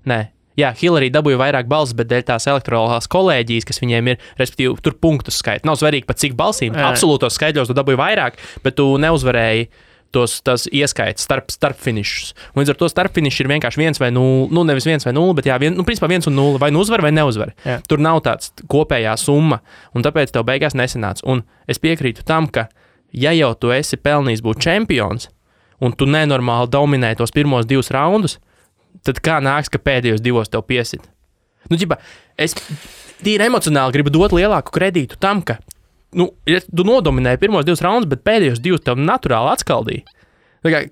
Hillary dabūja vairāk balsis, bet dēļ tās elektorālās kolēģijas, kas viņiem ir, respektīvi, tur punktus skaita. Nav svarīgi pat cik balsīm, absolūtos skaitļos tu dabūji vairāk, bet tu neuzvarēji tās ieskaitas starp finišus. Līdz ar to starp finišs ir vienkārši 1 vai 0, nevis 1 vai 0, bet principā 1 un 0, vai nu uzvar vai neuzvar. Tur nav tāds kopējā summa, un tāpēc tev beigās nesanāca. Un es piekrītu tam, ka ja jau tu esi pelnījis būt čempions, un tu nenormāli dominē tos pirmos 2 raundus, tad kā nāks, ka pēdējos 2 tev piesit? Es tīri emocionāli gribu dot lielāku kredītu tam, ka tu nodominēji pirmos 2 raundus, bet pēdējos 2 tev naturāli atskaldīja.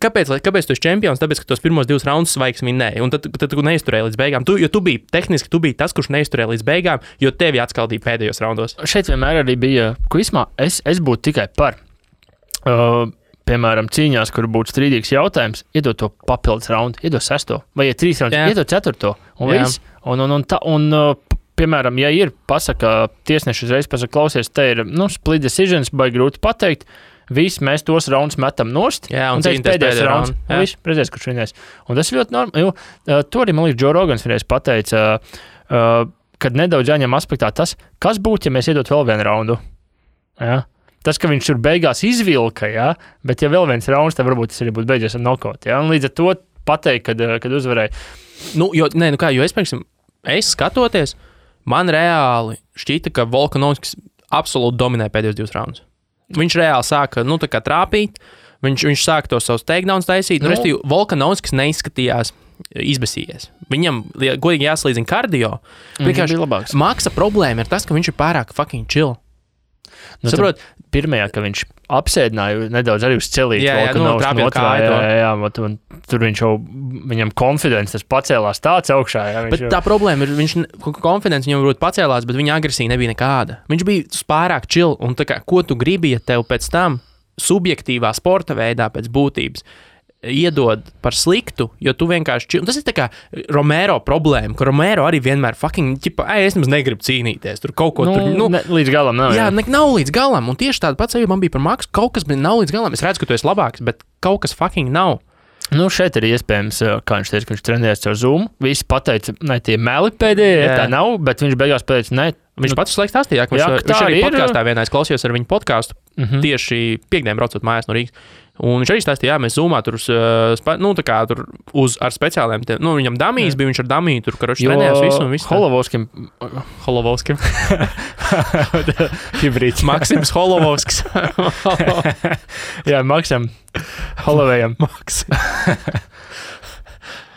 Kāpēc tu esi čempions? Tāpēc, ka tos pirmos 2 raundus svaigs vinēji, un tad tu neizturēji līdz beigām. Tu biji tas, kurš neizturēja līdz beigām, jo tevi atskaldīja pēdējos raundos. Šeit vienmēr arī bija, ko vismā es būtu tikai par. Piemēram, cīņās, kur būtu strīdīgs jautājums, iedot to papildus raundu, iedot 6. vai 3 raundus, iedot 4. un viss. Un piemēram, ja ir pasaka, tiesneši uzreiz pasaka, klausies, te ir, split decisions, vai grūti pateikt, visi mēs tos raundus metam nost, un teiks pēdējais raunds, un viss, redzēs, kurš vienais. Un tas ir ļoti normāli, jo to arī, man liekas, Joe Rogans vienreiz pateica, kad nedaudz jāņem aspektā tas, kas būtu, ja mēs iedot vēl vienu raundu. Ja? Tas, ka viņš tur beigās izvilka, ja? Bet ja vēl viens rauns, tad varbūt tas arī būtu beidzies ar knockout. Ja? Un līdz ar to pateikt, kad uzvarēja. Es skatoties, man reāli šķita, ka Volkanovskis absolūti dominē pēdējos 2 raundus. Viņš reāli sāka, tā kā trāpīt, viņš sāka tos savus takedowns taisīt, restīvi, Volkanovskis neizskatījās izbesījies. Viņam, godīgi jāslīdzina kardio, vienkārši Maksa problēma ir tas, ka viņš ir pārāk fucking chill. Saprot, pirmajā, ka viņš apsēdināja nedaudz arī uz celīt. Tur viņš jau, viņam confidence tas pacēlās tāds augšā. Jā, bet tā problēma ir, confidence viņam varbūt pacēlās, bet viņa agresija nebija nekāda. Viņš bija pārāk chill, un tā kā, ko tu gribi, ja tev pēc tam subjektīvā sporta veidā pēc būtības iedod par sliktu, jo tu vienkārši... Tas ir tā kā Romero problēma, ka Romero arī vienmēr fucking, es nemaz negribu cīnīties, tur kaut ko līdz galam nav. Jā, nav līdz galam, un tieši tāda pats man bija par Maksu, kaut kas nav līdz galam, es redzu, ka tu esi labāks, bet kaut kas fucking nav. Šeit ir iespējams, kā viņš teica, ka viņš trenējās caur Zoom, visi pateica, ne, tie meli pēdējie, tā nav, bet viņš beigās pateica, ne. Viņš pats slēgt stāstīja, ka viņš arī podkāstā vienā es klausījos ar viņu podkāstu, tieši piekdien braucot mājās no Rīgas. Un viņš arī stāstīja, mēs Zoomā tur ar speciāliem, viņam damijas bija, viņš ar damiju tur, karoči trenējās visu un visu. Holovovskim. Hibrīds. Maksims Holovovskis. Jā, Maksam. Holovējam. Maks.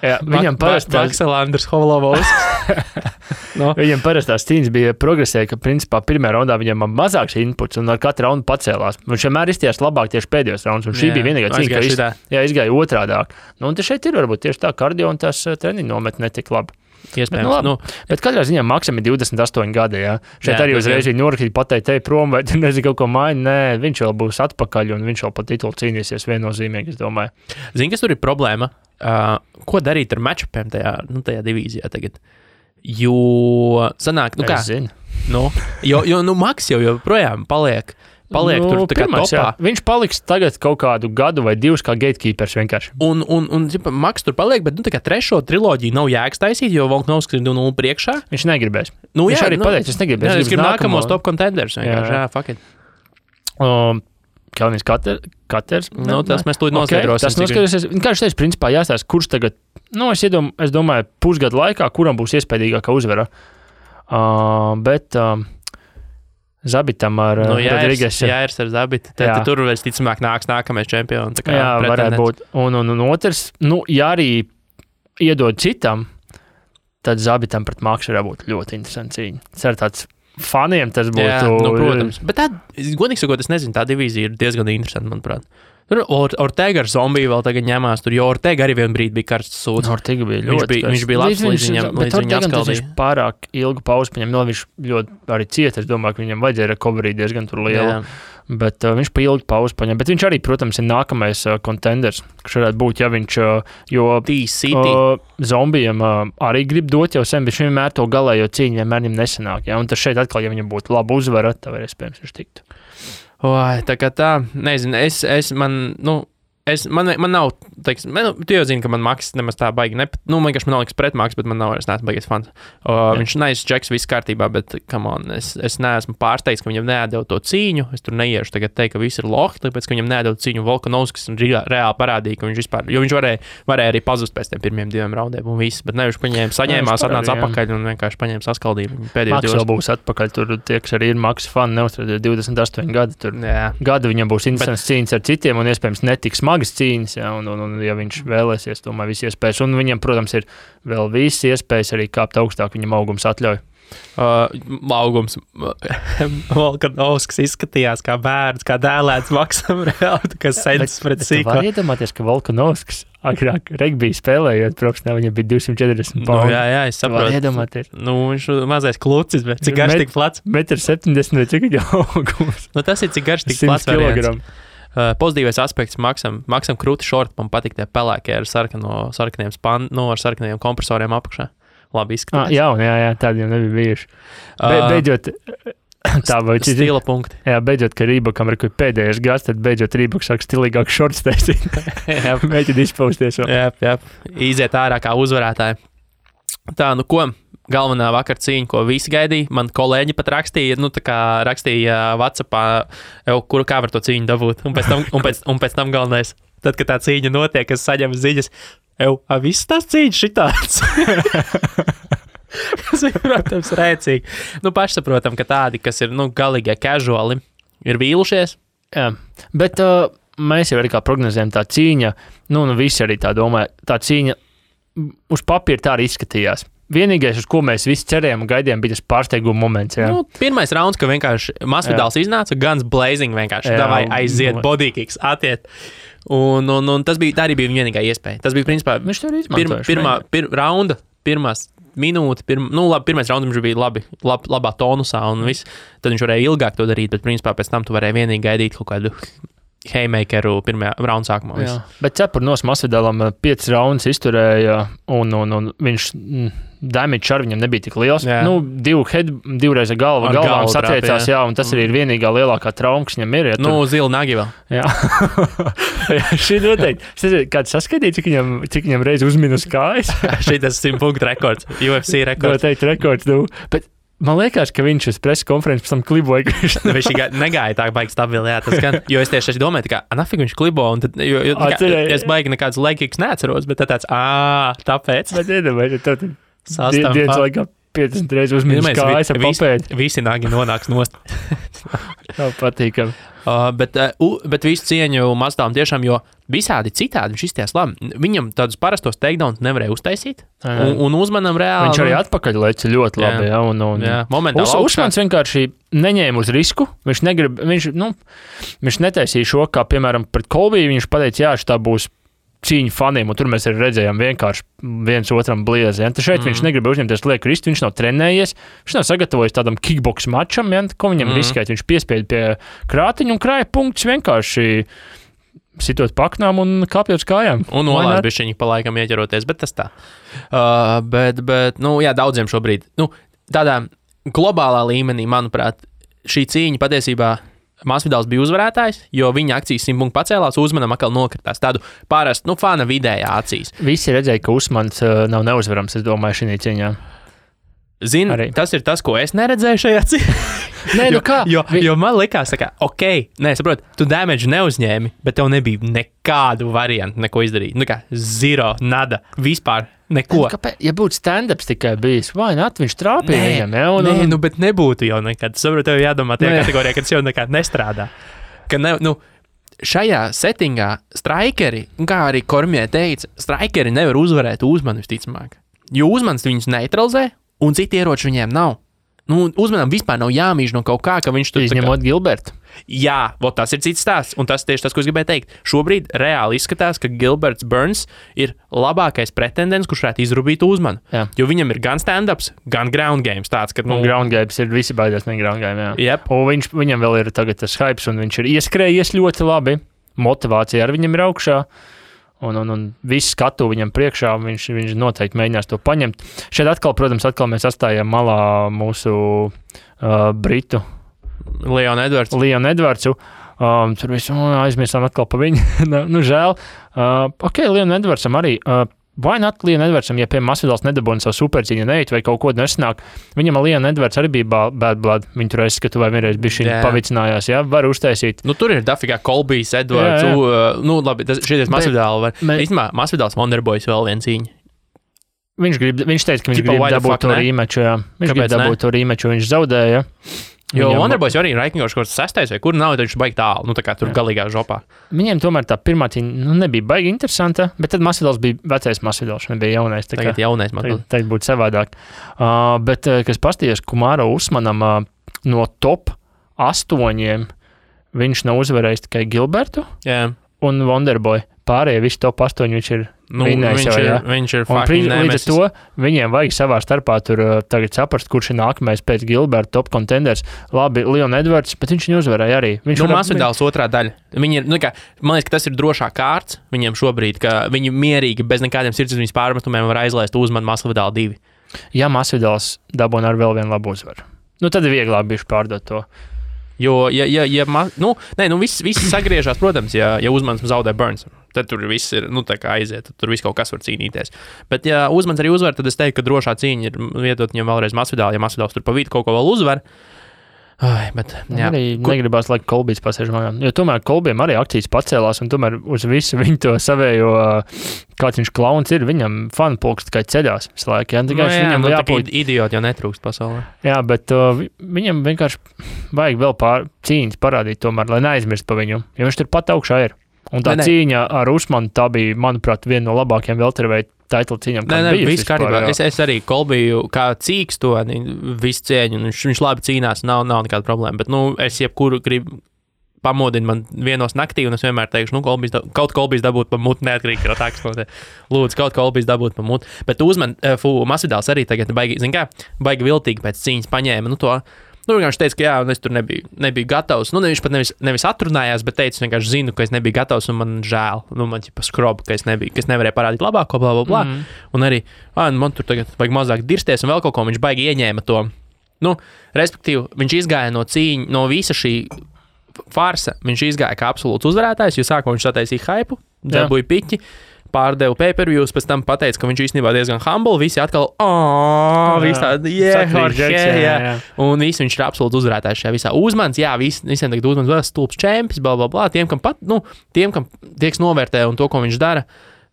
Jā, viņam parastās... Makselanders Holovovskis. Viņam parastās cīņas bija progresēja, ka principā pirmajā raundā viņam mazāks inputs un ar katru raundu pacēlās. Viņš vienmēr izties labāk tieši pēdējos raundus, un šī bija vienīgā cīņa, ka izgāja otrādāk. Un te šeit ir varbūt tieši tā kardio un tās treniņu nomet netik labi. Iespējams. Bet katrā ziņā Maksam ir 28 gadi, jā. Šeit arī uzreiz viņa norakīt pateikt, prom, vai tu nezinu kaut ko maini. Nē, viņš vēl būs atpakaļ un viņš vēl pa titulu cīnīsies viennozīmīgi, es domāju. Zini, kas tur ir problēma? Ko darīt ar matchupiem tajā divīzijā tagad? Jo sanāk, Maks jau joprojām paliek tur tā kā topā. Jā. Viņš paliks tagad kaut kādu gadu vai 2 kā gatekeepers vienkārši. Un Maks tur paliek, bet tā kā 3. triloģiju nav jēgas taisīt, jo Volkanovskis ir 2-0 priekšā. Viņš negribēs. Viņš arī pateica, es negribēs. Es gribu nākamos top contenders. Jā, fuck it. Kalniņš Katers. Tas mēs tūlīt noskaidrosim. Tas noskaidrosies. Kā viņš teica, principā jāstāsta, kurš tagad, es domāju, pusgadu laikā, kuram būs iespējīgākā uzvara. Bet Zabitam ar Rodrīgesu. Jā, ir ar Zabitu. Tad tur vēl ticamāk nākamais čempions. Jā, varētu būt. Un otrs, ja arī iedod citam, tad Zabitam pret Maksu varētu būt ļoti interesanti cīņa. Tas ir tāds faniem tas būtu... Jā, protams. Bet tā, godīgi sakot, es nezinu, tā divīzija ir diezgan interesanta, manuprāt. Tur Ortega ar zombiju vēl tagad ņemās, jo Ortega arī vienu brīdi bija karsts sūds. Ortega bija ļoti viņš bija labs līdz viņam atskaldīja. Viņš pārāk ilgu pauzi paņem, viņš ļoti arī cieta, es domāju, ka viņam vajadzēja recovery diezgan tur liela. Bet viņš pa ilgu pauzi paņem. Bet viņš arī, protams, ir nākamais contenders, kas varētu būt, ja viņš, jo zombijam arī grib dot jau sen, bet viņš vienmēr to galējo cīņu vienmēr viņam nesanāk. Ja? Un tas šeit atkal, ja viņam būtu laba uzvara, tā var iespējams viņš tiktu. Tā kā tā, nezinu, man nav, teiksim, tu jau zini, ka man Maks nemaz tā baigi, vienkārši man nav liks pret Maks, bet man nav, es neesmu baigies fans. Viņš neizs čeks, viss kārtībā, bet, come on, es neesmu pārsteigts, ka viņam neatdeva to cīņu, es tur neiešu tagad teikt, ka viss ir lohi, tāpēc, ka viņam neatdeva cīņu Volkanovskis un reāli parādīja, ka viņš vispār, jo viņš varēja arī pazust pēc tiem pirmiem 2 raundiem un viss, bet nevis saņēmās, atnāca atpakaļ un vienkārši paņēma saskaldību pēdējos 2. Maks vēl būs atpakaļ, tur tie, kas arī ir Maks fani, neuzstrādē 28 gadi, tur gadu viņam būs interesants cīņas ar citiem un iespējams netiks smagas cīņas, ja, un ja viņš vēlēsies, tomēr visi iespējas. Un viņam, protams, ir vēl visi iespējas arī kāpt augstāk, viņam augums atļauj. Augums. Volkanovskis izskatījās kā bērns, kā dēlēts Maksam reāli, kas sēdz pret sīko. Var iedomāties, ka Volkanovskis agrāk regbiju spēlējot profesionāli, viņam bija 240 pauni. Jā, es saprotu. Var iedomāties. Viņš mazais klucis, bet cik garš tik plats? 1,70 vai cik viņa augums? Tas ir cik garš tik plats variants. Pozitīvais aspekts Maksam krūti šorti, man patīk tie pelēkie ar sarkaniem kompresoriem apakšā. Labi izskatās. Jā, tādi jau nebija bijuši. Beidzot, tā vai stila punkti. Jā, beidzot, ka Rībakam ir pēdējais gads, tad beidzot Rībaks sāk stilīgāk šorts taisīt. Mēģina izpausties vēl. Jā, iziet ārā kā uzvarētāji. Tā, ko? galvenā vakar cīņa, ko visi gaidīja. Man kolēģi pat rakstīja, rakstīja WhatsAppā, kā var to cīņu dabūt. Un pēc tam galvenais, tad, kad tā cīņa notiek, es saņemu ziņas, viss tās cīņas šitāds. Tas ir, protams, rēcīgi. Pašsaprotam, ka tādi, kas ir, galīgie casuali, ir vīlušies. Jā, bet mēs jau arī kā prognozējam tā cīņa, visi arī tā domāja, tā cīņa uz papīra tā arī izskatījās. Vienīgais, uz ko mēs visi cerējām un gaidījām, bija tas pārsteiguma moments. Jā. Pirmais rauns, ka vienkārši Masvidals iznāca, Guns Blazing vienkārši davai aiziet, bodykicks attiet. Un tas bija, tā arī bija vienīgā iespēja. Tas bija, principā, viņš to arī izmantoja. Raunda, pirmās minūte, pirmais raunds viņš bija labā tonusā un viss. Tad viņš varēja ilgāk to darīt, bet, principā, pēc tam tu varēji vienīgi gaidīt kaut kādu haymakeru pirmajā raunda sākumā. Jā, bet cepur nos Masvidalam 5 raundus izturēja un viņš damage ar viņam nebija tik liels. Jā. Divreiz galvām satriecās, jā, un tas arī ir vienīgā lielākā trauma, kas viņam ir. Ja Zila nagi vēl. Jā. Šī noteikti. Kāds saskatīja, cik viņam reiz uzminus kājas? Šī tas 100 punktu rekords, UFC rekords. Noteikti rekords, Bet man liekas, ka viņš uz preses konferences pēc tam kliboja. Viņš negaidīja tā baigi stabili, jā, tas gan, jo es tieši domāju, nafig viņš klibo, un tad, es baigi nekāds laikīgs neatceros, bet tāds, tāpēc. Bet iedomājies, tad dienas laikā 50 reizes uzminus kājas ar papēdi. Visi nagi nonāks nost. Tā patīkam. Bet visu cieņu Masvidālam tiešām, jo visādi citādi viņš izties labi. Viņam tādus parastos takedowns nevarēja uztaisīt, un uzmanam reāli. Viņš arī atpakaļ leca ļoti labi. Jā, momentāli Usmans vienkārši neņēma uz risku. Viņš netaisīja šo, kā piemēram pret Kolbiju. Viņš pateica, jā, šitā būs cīņu faniem, un tur mēs arī redzējām vienkārši viens otram bliezi. Ja? Šeit viņš negrib uzņemties lieku ristu, viņš nav trenējies, viņš nav sagatavojis tādam kickbox mačam, ja? Ko viņam riskēt. Viņš piespieda pie krātiņa un krāja punktus vienkārši sitot paknām un kāpjot uz kājām. Un nolādz bišķiņi pa laikam ieķeroties, bet tas tā. Bet daudziem šobrīd. Tādā globālā līmenī, manuprāt, šī cīņa patiesībā Masvidals bija uzvarētājs, jo viņa akcijas 100 punktu pacēlās, Uzmanam atkal nokritās. Tādu parastu, fana vidējā acīs. Visi redzēja, ka Usmans nav neuzvarams, es domāju, šī cīņā. Zini, tas ir tas, ko es neredzēju šajā cīņā. Jo man likās, saprot, tu damage neuzņēmi, bet tev nebija nekādu variantu, neko izdarīt. Zero, nada, vispār neko. Ja būtu stand-ups tikai bijis, vai viņš trāpīja viņam, Nē, bet nebūtu jau nekad. Saprot, tev jādomā tajā kategorijā, kad tas jau nekad nestrādā. Šajā settingā strikeri, kā arī Kormie teica, strikeri nevar uzvarēt Uzmanu visticamāk. Jo Uzmans viņus neutralizē, un citi ieroči viņiem nav. Uzmanam vispār nav jāmīž no kaut kā, ka viņš tur... Izņemot Gilbertu. Jā, tas ir cits stāsts, un tas tieši tas, ko es gribēju teikt. Šobrīd reāli izskatās, ka Gilberts Burns ir labākais pretendents, kurš varētu izrubīt Uzmanu. Jā. Jo viņam ir gan stand-ups, gan ground games tāds, ka... Ground games ir visi baidās no ground game, jā. Yep. Un viņam vēl ir tagad tas hypes, un viņš ir ieskrējies ļoti labi. Motivācija ar viņam ir augšā. Un visu skatu viņam priekšā, viņš noteikti mēģinās to paņemt. Šeit atkal mēs atstājām malā mūsu Britu Leonu Edvardsu. Tur visu aizmirsām atkal pa viņu. Žēl. Leonu Edvardsam arī. Vai not Leonu Edvardsam, ja pie Masvidals nedabūna savu supercīņu neiet vai kaut ko nesanāk, viņam Leonu Edvards arī bija bad blood. Viņu tur aizskatu vai vienreiz bišķiņ pavicinājās, jā, var uztaisīt. Tur ir dafigā Kolbijs, Edvards, labi, šities Masvidāli var. Īstenībā Masvidals Wonderboys vēl viena cīņa. Viņš teica, ka viņš grib dabūt to rīmeču, jā. Viņš grib dabūt to rīmeču, viņš zaudēja. Jo Wonderboys arī ir raikņoši kaut kas 6. vai kur nav, tad viņš baigi tālu, tā kā tur galīgā žopā. Viņiem tomēr tā pirmā cīņa nebija baigi interesanta, bet tad Masvidals bija vecais Masvidals, nebija jaunais. Tagad jaunais Masvidals. Tagad būtu savādāk. Bet, kas pastījās Kumāro Usmanam no top 8, viņš nav uzvarējis tikai Gilbertu un Wonderboy. Pārējie visi top 8 viņš ir viņš ir fucking nemesis. Līdz ar to viņiem vajag savā starpā tur tagad saprast, kurš ir nākamais pēc Gilberta top contenders. Labi, Leon Edwards, bet viņš viņu uzvarēja arī. Masvidals otrā daļa. Viņi ir, man liekas, ka tas ir drošā kārts viņiem šobrīd, ka viņi mierīgi bez nekādiem sirdsapziņas pārmetumiem var aizlaist Uzmanu Masvidālu 2. Ja Masvidals dabūna ar vēl vienu labu uzvaru. Tad ir vieglāk bišķi pārdot to. Jo, viss sagriežās, protams, ja Uzmans zaudē Burns, tad tur viss ir, tā kā aiziet, tur viss kaut kas var cīnīties. Bet, ja Uzmans arī uzvar, tad es teiktu, ka drošā cīņa ir vietot viņam vēlreiz Masvidālu, ja Masvidāls tur pa vidu kaut ko vēl uzvar. Bet, jā. Arī negribās, lai Kolbijs pasēž mājā. Jo tomēr Kolbijam arī akcijas pacēlās, un tomēr uz visu viņu to savējo, kāds viņš klauns ir, viņam fanu pulks tikai ceļās visu laiku. Viņam jābūt idioti, jau netrūkst pasaulē. Jā, bet viņam vienkārši vajag vēl cīņas parādīt tomēr, lai neaizmirst pa viņu, jo viņš tur pat augšā ir. Un tā cīņa ar Usmanu, tā bija, manuprāt, viena no labākajām welterweight title cīņām. Viss kārtībā. Es arī Kolbiju kā cīks to visu cieņu, un viņš labi cīnās, nav nekāda problēma. Bet, es jebkuru gribu pamodinu man vienos naktī, un es vienmēr teikšu, kaut Kolbijs dabūt pa mutu, neatkarīgi no tā, kas notiek. Lūdzu, kaut Kolbijs dabūt pa mutu. Bet Masvidāls arī tagad baigi viltīgi pēc cīņas paņēma, viņš teica, ka jā, un es tur nebiju gatavs. Viņš pat nevis atrunājās, bet teica, vienkārši zinu, ka es nebiju gatavs, un man žēl. Man ķipa skroba, ka es nevarēju parādīt labāko, bla, bla, bla. Un arī, man tur tagad vajag mazāk dirsties, un vēl kaut ko viņš baigi ieņēma to. Respektīvi, viņš izgāja no visa šī farsa, viņš izgāja kā absolūts uzvarētājs, jo sākumā viņš sataisīja haipu, dabūja piķi, pārdeva pay-per-views, pēc tam pateica, ka viņš īstenībā diezgan humble, visi atkal, visi tādi, un visi viņš ir absolūti uzvarētājs šajā visā. Uzmans, visiem tagad Uzmans vēl stulbs čempions, bla, bla, bla, tiem, kam tieks novērtē un to, ko viņš dara,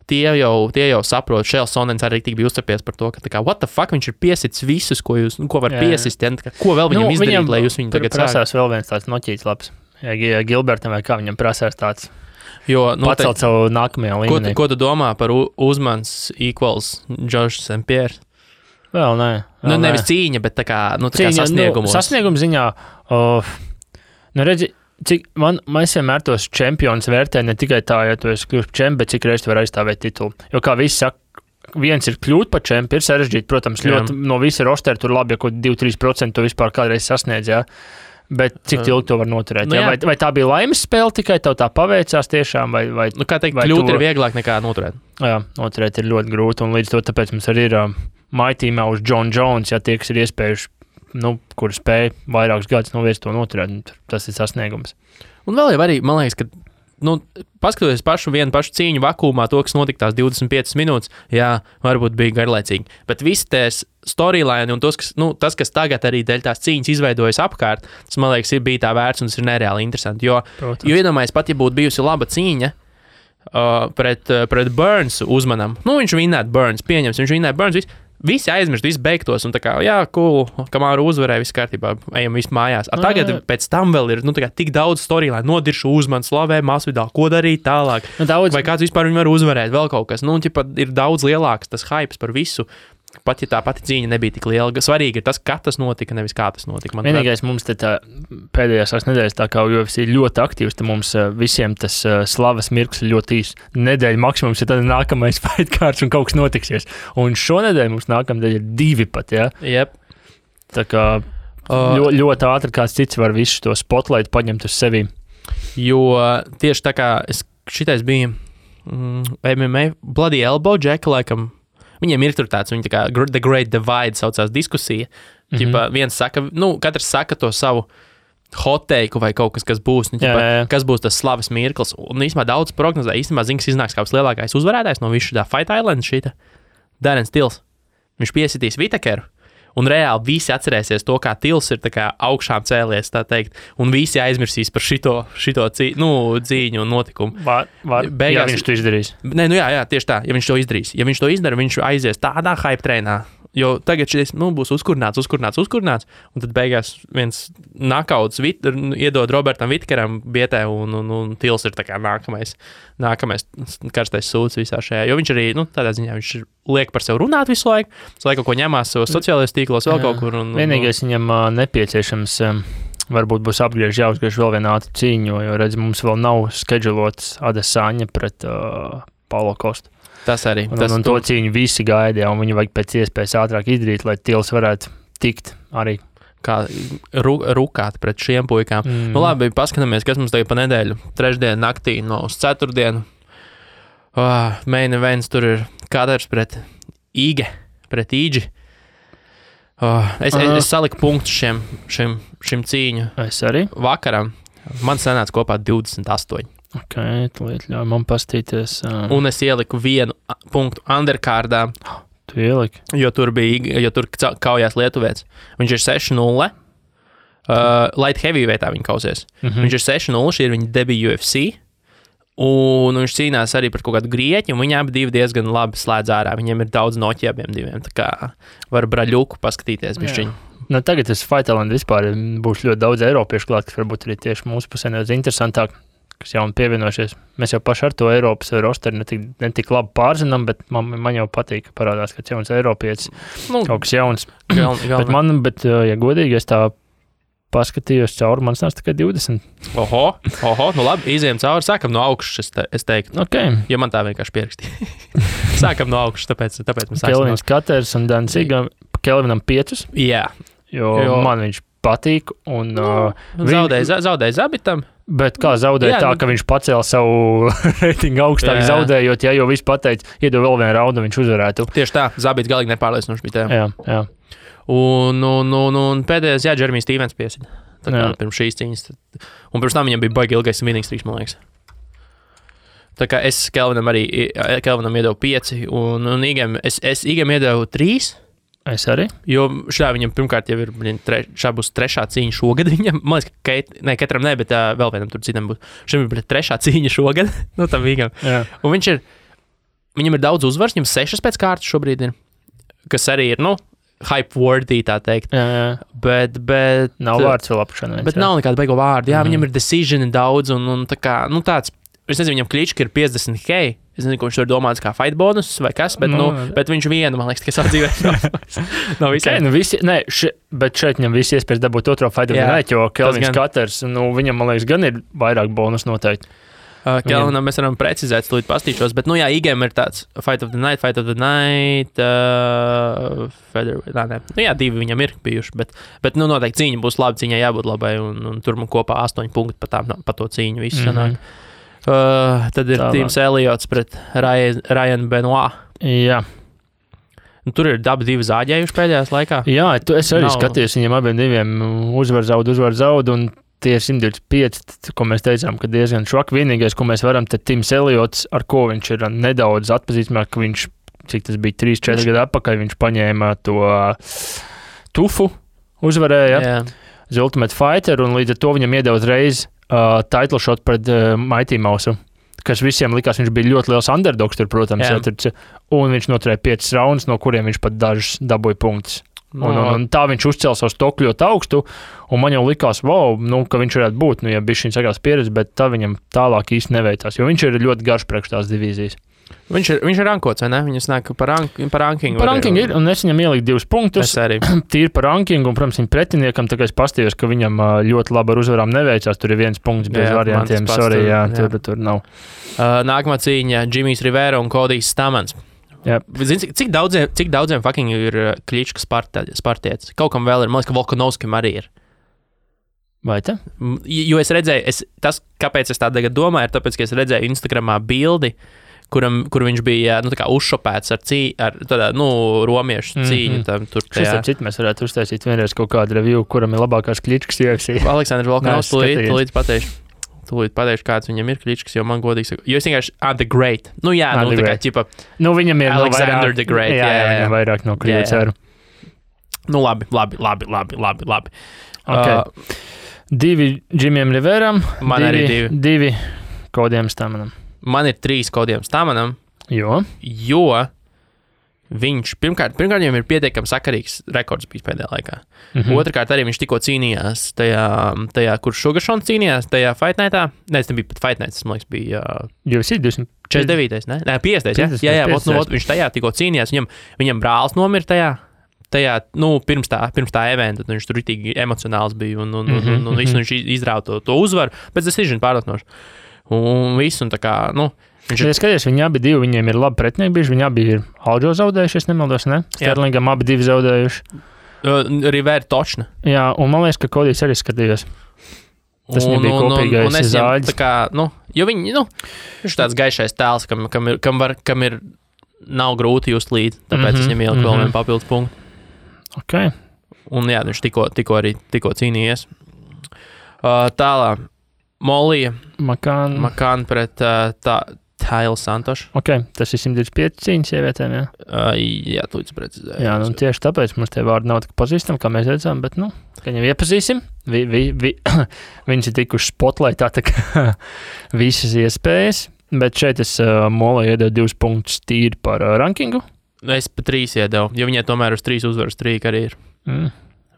tie jau saprot, Šēls Sonens arī tik bija uzcepies par to, ka tā kā, what the fuck, viņš ir piesits visus, ko var piesist, ko vēl viņam izdarīt, lai jūs viņu tagad prasās vēl viens tāds noķīts labs. Ja Gilbertam vai kā viņam prasās tāds pacelt savu nākamajā līmenī. Ko tu domā par Uzmans equals Josh St. Pierre? Vēl nē. Nevis cīņa, bet tā kā sasniegumos. Sasniegums ziņā, redzi, cik mēs vienmēr tos čempionus vērtē ne tikai tā, ja tu esi kļūst čempions, bet cik reiz tu vari aizstāvēt titulu. Jo kā visi saka, viens ir kļūt par čempionu, ir sarežģīti, protams, ļoti no visa rostera tur labi, ja kaut 2-3% tu vispār kādreiz sasniedz, jā. Bet cik ilgi to var noturēt? Vai tā bija laimes spēle, tikai tev tā paveicās tiešām? Kā teikt, kļūt ir vieglāk nekā noturēt? Jā, noturēt ir ļoti grūti, un līdz to tāpēc mums arī ir maitīmā uz John Jones, ja tie, kas ir iespējuši, kuri spēja vairākus gadus noviest to noturēt, tas ir sasniegums. Un vēl jau arī, man liekas, ka paskatoties vienu pašu cīņu vakumā, to, kas notika tās 25 minūtes, varbūt bija garlaicīgi. Bet visi tās storyline un tas, kas tagad arī dēļ tās cīņas izveidojas apkārt, tas, man liekas, bija tā vērts un tas ir nereāli interesanti. Jo iedomājies, pat ja būtu bijusi laba cīņa pret Burns Uzmanam, viņš vinnētu Burns, pieņems, viņš vinnētu Burns, visi aizmirst, visi beigtos, un tā kā, cool, kamēr uzvarēja, viss kārtībā, ejam visi mājās. Tagad pēc tam vēl ir, tik daudz storyline, nodiršu Uzmanu, slavē, Masvidālu, ko darīt tālāk. Vai kāds vispār viņu var uzvarēt, vēl kaut kas. Ir daudz lielāks tas hypes par visu, pat ja tā pati cīņa nebija tik liela. Svarīgi ir tas, kā tas notika, nevis kā tas notika. Vienīgais mums te tā pēdējās nedēļas, tā kā UFC ir ļoti aktīvs, tad mums visiem tas slavas mirklis ļoti īs. Nedēļa maksimums ir tad nākamais fight cards un kaut kas notiksies. Un šonedēļ mums nākamdēļ ir 2 pat, ja? Yep. Tā kā ļoti ātri kāds cits var visu to spotlight paņemt uz sevi. Jo tieši tā kā šitais bija MMA Bloody Elbow, Jack, laikam, viņiem ir tur tāds, viņi tā kā The Great Divide saucās diskusija. Viens saka, katrs saka to savu hoteiku vai kaut kas būs, kas būs tas slavas mirklis. Un īstenībā daudz prognozē, zina, kas iznāks kā lielākais uzvarētājs no visu tā Fight Island šita. Darren Tills. Viņš piesitīs Whittakeru. Un reāli visi atcerēsies to, kā Tills ir tā kā augšām cēlies, tā teikt, un visi aizmirsīs par šito cīņu un notikumu. Beigās, ja viņš to izdarīs. Nē, jā, tieši tā, ja viņš to izdarīs. Ja viņš to izdara, viņš aizies tādā hype treinā, jo tagad šis būs uzkurināts, un tad beigās viens knockouts iedod Robertam Whittakeram bietē, un Tills ir tā kā nākamais karstais sūds visā šajā, jo viņš arī, tādā ziņā, viņš liek par sevi runāt visu laiku, kaut ko ņemās savos sociālajos tīklos, vēl kaut kur. Vienīgais viņam nepieciešams, varbūt būs jāuzgriež vēl viena ātra cīņa, jo redz, mums vēl nav skedžulots Adesanya pret Paulo Kostu. Tas arī. Un to cīņu visi gaidīja, un viņi vajag pēc iespējas ātrāk izdarīt, lai Tills varētu tikt arī. Kā rukāt pret šiem puikām. Labi, paskatāmies, kas mums tagad pa nedēļu. Trešdienu naktī uz ceturtdienu. Main events tur ir Kadars pret Īģi. Es saliku punktus šim cīņu Es arī. vakaram. Man sanāca kopā 28. Ok, tūlīt ļauj man pastīties. Un es ieliku 1 punktu underkārdā, Tu ieliki. jo tur kaujās lietuvietis. Viņš ir 6-0. Light heavyweighttā viņa kausies. Viņš ir 6-0, šī ir viņa debija UFC. Un viņš cīnās arī par kaut kādu grieķi, un viņi abi diezgan labi slēdz ārā. Viņiem ir daudz noķi abiem diviem. Tā kā var braļuku paskatīties bišķiņu. Nu, tagad tas Fighterland vispār būs ļoti daudz eiropiešu klāt, kas varbūt arī tieši mūsu pusē nedaudz interesantāk, kas jauni pievienojušies. Mēs jau paši ar to Eiropas rosteri ne tik labi pārzinām, bet man jau patīk, ka parādās, ka jauns eiropietis, kaut kas jauns. Bet, ja godīgi, es tā paskatījos cauri, man sāc tikai 20. Oho, nu labi, izējām cauri, sākam no augšas, es teiktu. Okay. Ja man tā vienkārši pierakstīja. Sākam no augšas, tāpēc mēs sākam. Kelvins Katers un Dancīga, Kelvinam 5. Jā. Jo man viņš patīk. Un, zaudēja Zabitam. Bet kā zaudēja tā, ka viņš pacēla savu reitingu augstāk zaudējot, ja jau viss pateica, iedod vēl vienu raundu, viņš uzvarētu. Tieši tā, Zabits galīgi nepārliecinoši bija tā. Jā. Un pēdējais, Džeremijs Stīvens piesida. Tā kā pirms šīs cīņas. Un pirms tam viņam bija baigi ilgais winning streaks, man liekas. Tā kā es Kelvinam iedevu 5, un Igam iedevu 3. Es arī. Jo viņam pirmkārt jau ir, šā būs 3. cīņa šogad viņam. Man liekas, ka katram ne, bet vēl vienam tur citam būs. Šim ir 3. cīņa šogad, nu tam Igam. Un viņam ir daudz uzvars, viņam 6 pēc kārtas šobrīd ir, kas arī ir, hype-worthy, tā teikt. Jā. Bet nav vārds vēl apšanai. Bet nav nekāda beigo vārda. Jā, viņam ir decision daudz, un tā kā, tāds, es nezinu, viņam Klička ir 50K. Es nezinu, ko viņš tur domāts kā fight bonus vai kas, bet, bet viņš vienu, man liekas, tikai savu dzīvē. Nav visiem. Bet šeit viņam visi iespējas dabūt otro fight of the night, jo Kelvins Katers, viņam, man liekas, gan ir vairāk bonus noteikti. Kelvinam mēs varam precizēt, slūdīt pastīšos, bet, Igam ir tāds Fight of the Night, divi viņam ir bijuši, bet noteikti cīņa būs laba, cīņai jābūt labai, un tur man kopā 8 punkti pa to cīņu visu sanāk. Tad ir Tims Elliots pret Ryan Benoit. Jā. Tur ir dabi 2 zāģējuši pēdējās laikā. Jā, es arī skatījos viņiem abiem diviem uzvar zaud, un tie ir 125, ko mēs teicām, ka diezgan švak. Vienīgais, ko mēs varam, tad Tims Elliots, ar ko viņš ir nedaudz atpazīstamāk, ka viņš, cik tas bija 3-4 gadu atpakaļ, viņš paņēma to tufu, uzvarēja The Ultimate Fighter, un līdz ar to viņam iedeva uzreiz title shot pret Mighty Mouse, kas visiem likās, viņš bija ļoti liels underdogs tur, protams, un viņš noturēja 5 raundus, no kuriem viņš pat dažus dabūja punktus. Un tā viņš uzcēla savu stoku ļoti augstu, un man jau likās, ka viņš varētu būt, ja bija šī sagās pieredze, bet tā viņam tālāk īsti neveicās, jo viņš ir ļoti garš priekš tās divīzijas. Viņš ir rankots, vai ne? Viņas nāk par rankingu. Par rankingu ir, un es viņam ieliku 2 punktus. Tīri par rankingu, un, protams, viņa pretiniekam, tā kā es pastījos, ka viņam ļoti labi ar uzvarām neveicās, tur ir 1 punkts bez variantiem, tur nav. Nākamā cīņa Jimmijs Rivera un Kodijs Stamans. Zini, cik daudziem fucking ir Klička spartietis? Kaut kam vēl ir, man liekas, ka Volkanovskim arī ir. Vai tā? Jo es redzēju, kāpēc es tā tagad domāju, ir tāpēc, ka es redzēju Instagramā bildi, kur viņš bija tā kā uzšopēts ar romiešu cīņu. Šis ar citu mēs varētu uztaisīt vienreiz kaut kādu review, kuram ir labākās Kličkas UFC. Aleksandrs Volkanovs tūlīt pateikšu, kāds viņam ir Kličkas, jo man godīgi saka, jo es vienkārši The Great. Tā kā ķipa. Viņam ir Alexander the Great. Jā, viņam vairāk no Krievijas. Labi. Okay. 2 Jimijam Riveram. Man arī 2 Kodijam Stamanam. Man ir 3 Kodijam Stamanam. Jo viņš, pirmkārt viņam ir pietiekami sakarīgs rekords bijis pēdējā laikā. Otrakārt, arī viņš tikko cīnījās tajā kur Sugaršons cīnījās, tajā Fight Nightā. Nē, tas nebija pat Fight Night, tas, man liekas, bija... UFC 249, ne? Nē, 50, jā, viņš tajā tikko cīnījās, viņam brālis nomira tajā, pirms tā eventa, viņš tur ritīgi emocionāls bija, un visu viņš izrāva to uzvaru, pēc decision pārlietinoši. Un visu, un tā kā, Ja skaties, viņi abi divi, viņiem ir labi pretinieki bijuši, viņi abi ir Aljo zaudējuši, es nemaldos, ne? Sterlingam abi divi zaudējuši. Rivera točna. Jā, un man liekas, ka Kodijs arī skatījās. Tas viņam bija kopīgais zāļs. Tā kā, jo viņi, viņš tāds gaišais tēls, kam ir nav grūti just līdzi, tāpēc es viņam ieliku vēl vienu papildus punktu. Ok. Un jā, viņš tikko cīnījies. Tālāk, Molija. Makāna pret Taila Santoša. Ok, tas ir 125 cīņas sievietēm, jā? Jā, tu līdz precizēji. Jā, nu tieši tāpēc mums tie vārdi nav tik pazīstami, kā mēs redzam, bet, ka viņam iepazīsim. Viņas ir tikuši spotlaitā, tā kā visas iespējas, bet šeit es Molai iedevu 2 punktus tīri par rankingu. Es pa 3 iedevu, jo viņai tomēr uz 3 uzvaru strīka arī ir.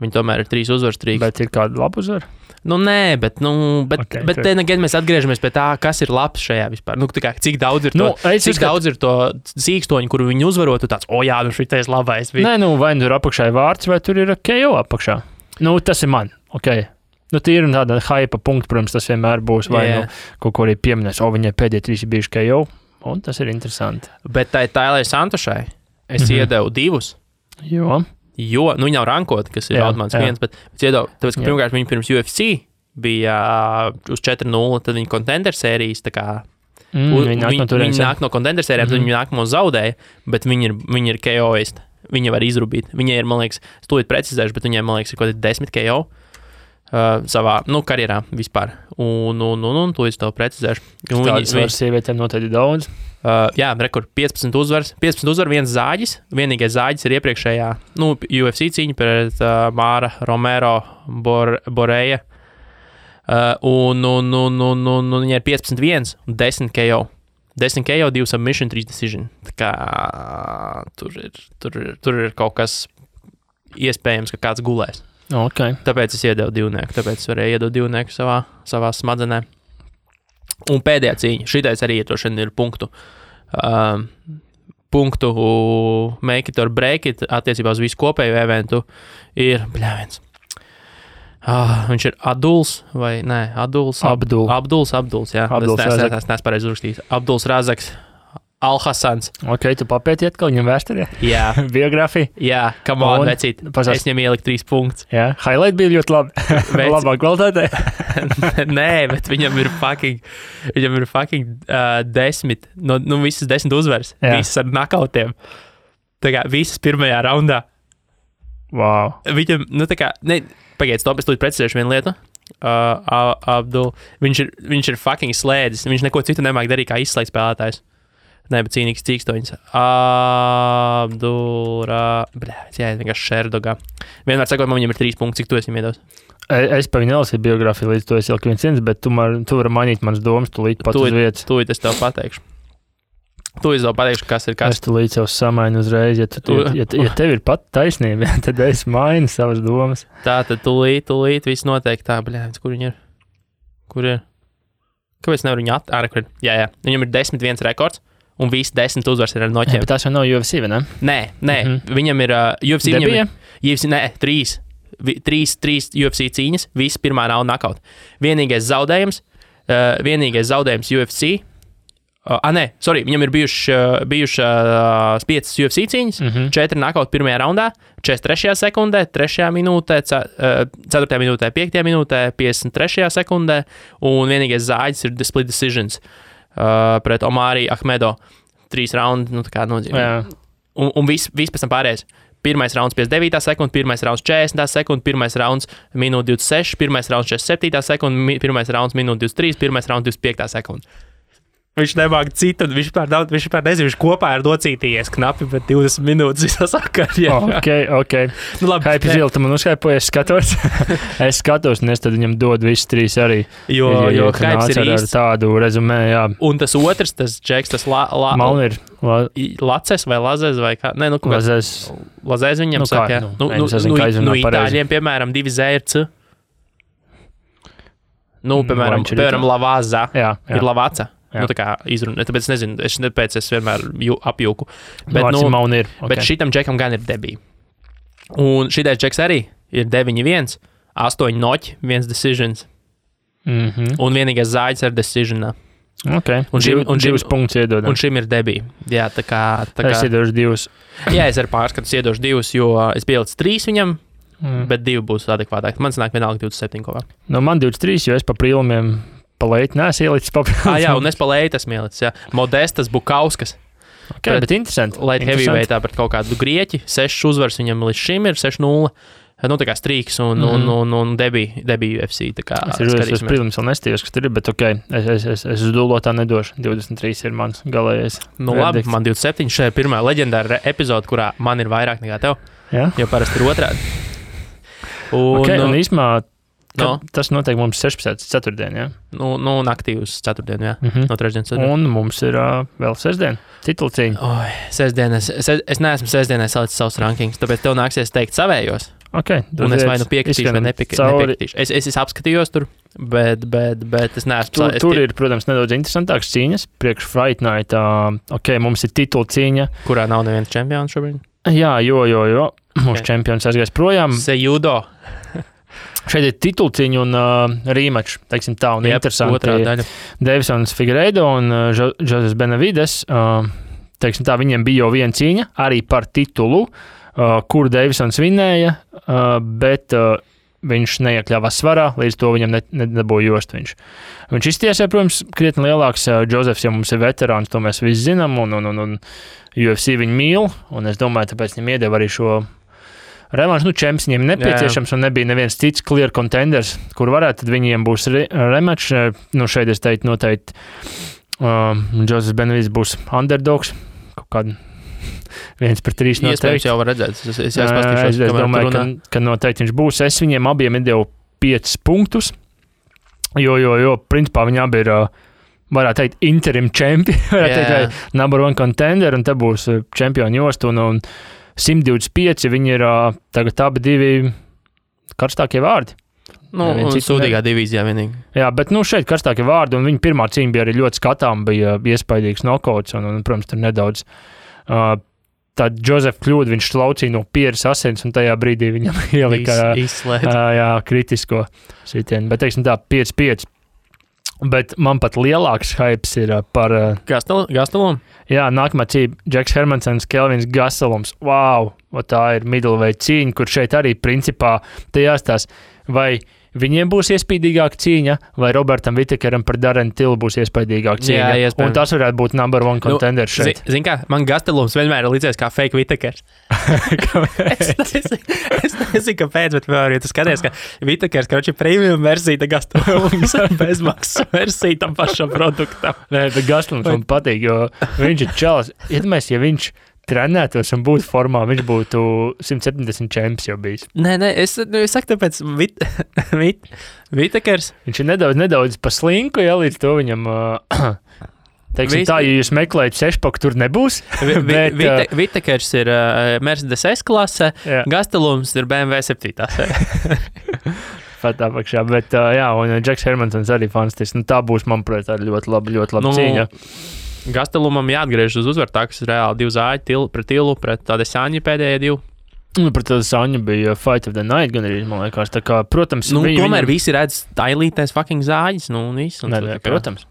Viņa tomēr ir 3 uzvaru strīka. Bet ir kāda laba uzvara? Nē, bet mēs atgriežamies pie tā, kas ir labs šajā vispār. Cik daudz ir to sīkstoņu, kuru viņi uzvarot, tu tāds, jā, šitais labais. Nē, vai tur apakšā ir vārds, vai tur ir KO apakšā. Tas ir man, ok. Tīri un tāda hypa punkta, protams, tas vienmēr būs, vai kaut ko arī pieminēs, viņai pēdējie 3 ir bijuši KO, un tas ir interesanti. Bet tai Tailai Santošai es iedevu 2. Jo, viņa nav rankota, kas ir automāts 1, bet iedevu, tāpēc, ka pirmkārt viņa pirms UFC bija uz 4-0, tad viņa contender sērijas, tā kā viņa nāk no contender sērijām, tad viņa nākamo zaudēja, bet viņa ir KO-ist, viņa var izrubīt. Viņai ir, man liekas, es tūlīt precizēšu, bet viņai, man liekas, ir kaut 10 KO savā, karjerā vispār. Un tūlīt to precizēšu. Tādas varas sievietēm noteikti daudz. Jā, rekord 15 uzvaras, 1 zāģis. Vienīgais zāģis ir iepriekšējā UFC cīņa pret Māra Romero Boreja. Un viņa ir 15-1 un 10 KO. 10 KO, 2 submission, 3 decision. Tā kā tur ir kaut kas iespējams, ka kāds gulēs. Okay. Tāpēc es iedevu 2, tāpēc es varēju iedot 2 savā smadzenē. Un pēdējā cīņa, šitais arī ir punktu make it or break it attiecībā uz visu kopēju eventu ir, viņš ir Aduls vai nē, Abduls, jā. Es neesmu pareizi uzrakstījis. Abduls Razaks Al-Hassans. Ok, tu papēti atkal viņam vēsturē? Jā. Biogrāfija? Jā, come on, vecīt. Es viņam ieliku 3 punktus. Jā, highlight bija ļoti labi. Labā kvalitātē. Nē, bet viņam ir fucking 10, visas 10 uzvaras. Jā. Visas ar knockoutiem. Tā kā visas pirmajā raundā. Wow. Viņam, pagaid, stop, es tūlīt precizēšu vienu lietu. Abdul, viņš ir fucking slēdzis. Viņš neko citu nemāk darīt kā izslēgt spēlētājs. Nē, bet cīnīgs cīkstoņas. Vienkārši Šerdogā. Vienmēr sakot, man viņam ir 3 punkti, cik tu esi viņam iedos? Es pa viņu nelasīju biogrāfiju, līdz to es ieliku 1, bet tu vari mainīt manas domas, tu līdz pat uz vietas. Tūlīt es tev pateikšu. Kas ir kas. Es tu līdz jau samainu uzreiz, ja tev ir pat taisnība, tad es mainu savas domas. Tā, tad tūlīt viss noteikti tā, kur viņi ir? Kur ir? Kāpēc nevar viņu atkārt? Jā, viņam ir 10-1 rekords. Un visi 10 uzvaras ir ar noķiem. Bet tās jau nav UFC, vai ne? Nē. Viņam ir UFC. UFC, 3 UFC cīņas, visi pirmā raunda knockout. Vienīgais zaudējums UFC. Viņam ir bijušas 5 UFC cīņas, 4 knockout pirmajā raundā, 43. sekundē, 3. minūtē, 4. minūtē, 5. minūtē, 53. sekundē, un vienīgais zāģis ir split decisions. Pret Omari Ahmedo 3 raundi, tā kā nodzīvē. Un viss pēc tam pārējais. Pirmais rauns 59. sekunda, pirmais rauns 40. sekunda, pirmais rauns minūte 26, pirmais rauns 47. sekunda, pirmais rauns minūte 23, pirmais rauns 25. sekunda. Viņš nemāk citu, viņš vispār nezinu, viņš kopā ir docītījies knapi, bet 20 minūtes visā sakarā. Ok. Labi. Haipi Zila, tu man uzskaipoji, es skatos, un es tad viņam dodu visus 3 arī. Jo Haips ir ar tādu rezumē, jā. Un tas otrs, tas džeks, tas Laces vai Lazes vai kā? Nē, Lazes viņam saka, jā. Itāļiem, piemēram, 2 Z ir C. Piemēram, Lavazza ir Lavaca. Tā kā izruna, tāpēc nezinu, es vienmēr apjūku. Bet šitam džekam gan ir debija. Un šitais džeks arī ir 9-1, 8 noķi, 1 decisions. Un vienīgais zāģis ar decisionā. Ok, un 2 punktus iedodam. Un šim ir debija. Jā, tā kā... Es iedošu 2. Jā, es ar pārskatu iedošu 2, jo es pielicu 3 viņam, bet 2 būs adekvātāk. Man sanāk vienalga 27 kopā. Man 23, jo es pa prīlumiem palēti neesmu ielicis papildus. Jā, un es palēti esmu ielicis, jā. Modestas Bukauskas. Bet interesanti. Light heavyweightā pret kaut kādu grieķi. 6 uzvaras viņam līdz šim ir, 6-0. Nu, tā kā Strīks un Debbie UFC. Tā kā es protams, vēl nestījos, kas tur ir, bet es uz dulotā nedošu. 23 ir mans galējais. Nu, labi, man 27. Šī ir pirmā leģendāra epizode, kurā man ir vairāk nekā tev. Jā? Jo parasti ir otrādi. Un īsmā, tas notiek mums 16. ceturtdien, jā? Nu, naktī uz ceturtdienu, jā. No trešdienas ceturtdienu. Un mums ir vēl sestdien, titulcīņa. Sestdien, es neesmu sestdienai salicis savus rankings, tāpēc tev nāksies teikt savējos. Un es vai nu piekritīšu, vai nepiekritīšu. Es apskatījos tur, bet es neesmu... Tur ir, protams, nedaudz interesantāks cīņas. Priekš Fight Night, mums ir titulcīņa. Kurā nav neviens čempions šobrīd? Jā, jo. Mūsu čempions aizgājis projām. Sejudo. Šeit ir titulciņa un rematch, teiksim tā, un interesanti. Otrā daļa. Devisons Figueiredo un Joses Benavides, teiksim tā, viņiem bija jau viena cīņa, arī par titulu, kur Devisons vinēja, bet viņš neiekļāvās svarā, līdz to viņam nedabūja jost viņš. Viņš iztiesē, protams, krietni lielāks. Josefs, ja mums ir veterāns, to mēs visi zinām, un UFC viņu mīl, un es domāju, tāpēc viņam iedeva arī šo revanšu. Čemps viņiem nepieciešams, un nebija neviens cits clear contenders, kur varētu, tad viņiem būs rematch. Šeit es teiktu noteikti, Joses Benavides būs underdogs, kaut kādu 1-3 noteikti. Iespējams jau var redzēt. Es domāju, ka noteikti viņš būs. Es viņiem abiem iedevu 5 punktus, jo principā viņi abi ir, varētu teikt, interim čempi, varētu teikt, number one contender, un te būs čempioni jost, un 125 viņi ir tagad abi divi karstākie vārdi. Un sūdīgā divīzijā vienīgi. Jā, bet šeit karstākie vārdi, un viņa pirmā cīņa bija arī ļoti skatām, bija iespaidīgs nokauts, un protams, tur nedaudz tad Josef kļūda, viņš slaucīja no pieres asins, un tajā brīdī viņam ielika kritisko sitienu. Bet, teiksim tā, 5-5. Bet man pat lielāks hypes ir par... Gastelum? Jā, nākamā cīņa Džeks Hermansons, Kelvins Gastelums. Wow, tā ir middleweight cīņa, kur šeit arī principā te jāstās, vai viņiem būs iespīdīgāka cīņa, vai Robertam Whittakeram par Darren Tillu būs iespīdīgāka cīņa. Jā, un tas varētu būt number one contender šeit. Zini kā, man Gastelums vienmēr ir līdzies kā fake Whittakers. es nezinu, kāpēc, bet vēl, ja tu skaties, ka Whittakers, karoči, premium versija, Gastelums bezmaksas versija tam pašam produktam. Nē, bet Gastelums man patīk, jo viņš ir čalis. Iedomājies, ja viņš trenētos un būtu formā, viņš būtu 170 čemps jau bijis. Nē, es saku, tāpēc Whittakers. Viņš ir nedaudz pa slinku, ja līdz to viņam, teiksim tā, ja jūs meklējat sešpaku, tur nebūs. Whittakers ir Mercedes S-klasē, Gastelums ir BMW 7. Pat apakšā, bet un Džeks Hermansons arī fantastisks. Tā būs, manuprāt, ļoti laba cīņa. Gastelumam jāatgriež uz uzvaru, tā, kas ir reāli 2 zāļi pret Tillu, pret Adesāņu pēdējie 2. Pret Adesāņu bija Fight of the Night, gan arī, man liekas, tā kā, protams... tomēr visi redz tailītēs fucking zāļus, un viss. Protams.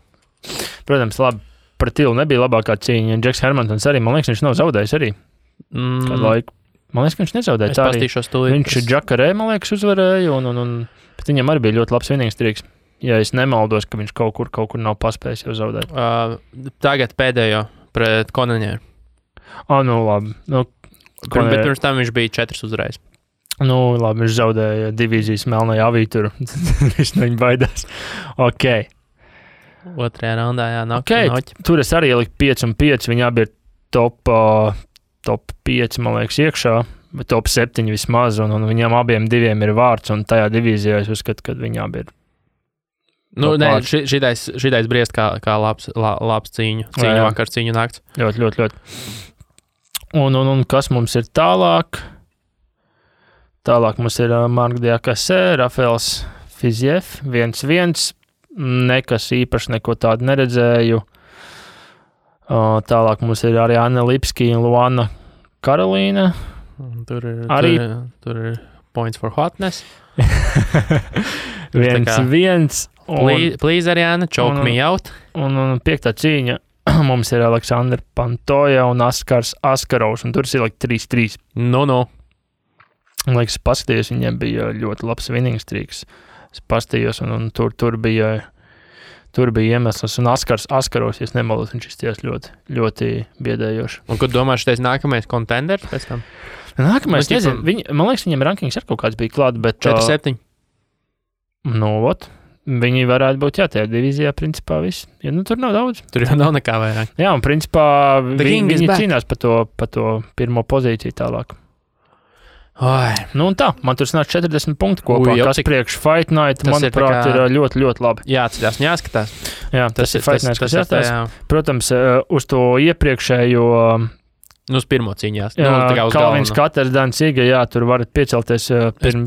Protams, labi, pret Tillu nebija labākā cīņa, Džeks Hermansons arī, man liekas, viņš nav zaudējis arī. Kādu laiku. Man liekas, ka viņš nezaudēja. Es pastīšos tūlīt. Viņš Džakarē, man liekas, uzvarēja, bet viņam arī bija ļoti labs vienīgs triks. Ja es nemaldos, ka viņš kaut kur nav paspējis jau zaudēt. Tagad pēdējo pret Konaņēru. Labi. Bet pirms tam viņš bija 4 uzreiz. Labi, viņš zaudēja divīzijas melnajā avī tur. Viņš no viņa baidās. Ok. Otrajā raundā, jā, noķi. Tur es arī ieliku 5-5. Viņi abi ir top 5, man liekas, iekšā. Bet top 7 vismaz. Un viņam abiem diviem ir vārds. Un tajā divīzijā es uzskatu, ka viņi abi ir. Šitais briest kā labs cīņu vakars, cīņu nakts. Ļoti. Un kas mums ir tālāk? Tālāk mums ir Mark Diakasē, Rafaels Fiziev, 1-1. Nekas īpaši neko tādu neredzēju. Tālāk mums ir arī Anna Lipski un Luana Karolīna. Tur ir points for hotness. 1-1. Please, Ariana, choke me out. Un 5. cīņa mums ir Aleksandra Pantoja un Askars Askarovs, un tur ir 3-3. Man liekas, paskatījos, viņiem bija ļoti labs winning streaks. Es paskatījos, un tur bija Tur bija iemesls, un Askaros, ja nemaldos, viņš izties ļoti, ļoti biedējoši. Un kur domā, šitais nākamais kontenders pēc tam? Nākamais, nezinu, man liekas, viņam rankings ar kaut kāds bija klāt, bet... 4-7. Viņi varētu būt, tajā divīzijā, principā, viss. Ja, tur nav daudz. Tur jau nav nekā vairāk. Jā, un principā viņi cīnās pa to pirmo pozīciju tālāk. Oi. Nu un tā, man tur sanāk 40 punktu kopā, kas priekš Fight Night, manuprāt, ir ļoti, ļoti labi. Jāatcerās, jāskatās. Jā, tas ir Fight Night, kas jāskatās. Protams, uz to iepriekšējo... uz pirmo cīņās. Kalvins Katers, Dancīga, tur varat piecelties,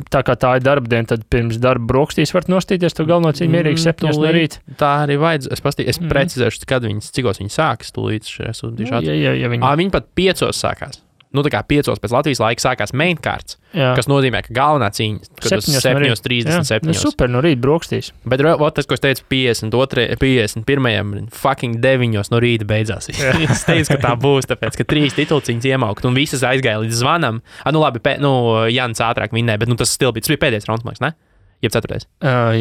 tā kā tā ir darba diena, tad pirms darba brokstīs varat nostīties to galveno cīņu mierīgi 7 no rīta. Tā arī vajadz. Es precizēšu, cikos viņi sākas tūlīt. Viņi pat 5 sākās. Tā kā 5 pēc Latvijas laika sākās main cards, kas nozīmē, ka galvenā cīņa, kad uz 7:37. Super, no rīta brokstīs. Bet tas, ko es teicu, 51. fucking 9 no rīta beidzās. Es teicu, ka tā būs, tāpēc, ka 3 titulciņas iemaukt un visas aizgāja līdz zvanam. Labi, Jans ātrāk vinnēja, bet tas still bija. Tas bija pēdējais raunds, ne? Jeb 4.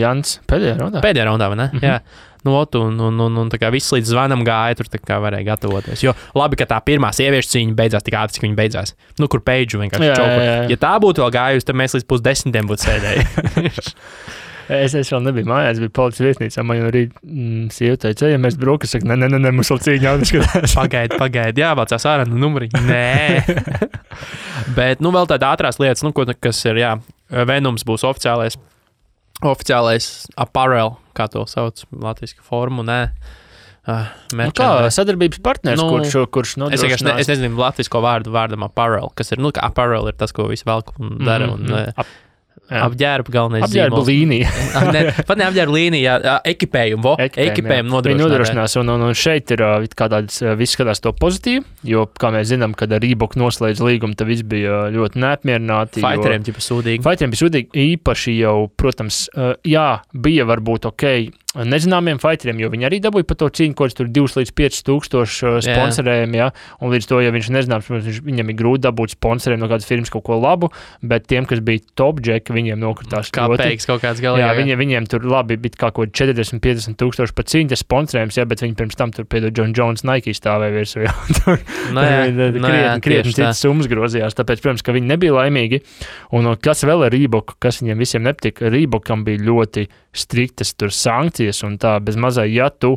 Jans pēdējā raundā? Pēdējā raundā, vai ne? Jā. Un tā kā viss līdz zvanam gāja, tur tā kā varēja gatavoties. Jo labi, ka tā pirmā sieviešu cīņa beidzās tik ātri, cik viņa beidzās. Kur Peidžu vienkārši čauku. Ja tā būtu vēl gājusi, tad mēs līdz 9:30 būtu sēdēji. Es vēl nebiju mājās, biju policijas vietnīcā. Man jau arī sieva teica, ja mēs brokas, saka, nē, mums vēl cīņa jāskatās. Pagaidi, jāvācās ārā no numuriņa. Nē. Bet, vēl tāda ātrās lietas, kas ir, Venoms būs oficiālais apparel, kā to sauc latviski formu, nē. Kā sadarbības partners, kurš nodrošinās? Es nezinu latvisko vārdam apparel, kas ir, kā apparel ir tas, ko visi velk un dara. Apģērba galvenais apģērba līnija. Pat ne apģērba līnija, ekipējumu nodrošināt. Viņi nodrošinās, un šeit ir kā tāds, viss skatās to pozitīvi, jo, kā mēs zinām, kad ar Reebok noslēdz līgumu, tad viss bija ļoti neapmierināti. Fighteriem bija sūdīgi. Īpaši jau, protams, bija varbūt nezināmiem fighteriem, jo viņi arī dabūja par to cīņu, ko tur 2 līdz 5 tūkstoši sponsorējumi, un līdz to, ja viņš nezināms, viņam ir grūti dabūt sponsoriem no kādas firmas kaut ko labu, bet tiem, kas bija top jack, viņiem nokritās kā peiks kaut kāds galā. Viņiem tur labi bija kā kaut 40-50 tūkstoši par cīņu, tas sponsorējums, bet viņi pirms tam tur piedod John Jones Nike stāvēja virsū, krietni citas summas grozījās, tāpēc, protams, ka viņi nebija laimīgi, un kas vēl ar Reebok, kas viņiem visiem nepatika, Reebokam bija ļoti striktas tur sankcijas, un tā bez mazai, ja tu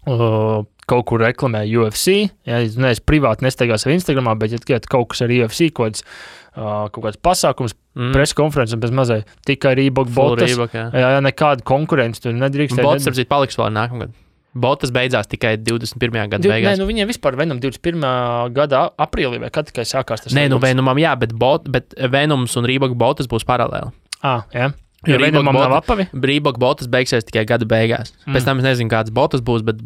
kaut kur reklamē UFC, es privāti nestaigās ar Instagramā, bet ja kaut kas ar UFC, kaut kāds pasākums, preskonferences bez mazai, tikai Reebok botas, nekāda konkurence tur nedrīkst. Botas, apzīt, paliks vēl nākamgad. Botas beidzās tikai 21. gada beigās. Nē, viņiem vispār Venom 21. gada aprīlī, vai kad tikai sākās tas? Nē, Venomam bet Venoms un Reebok botas būs paralēli. Jā. Jo Venomam nav apavi? Reebok botas beigsies tikai gada beigās. Pēc tam es nezinu, kādas botas būs, bet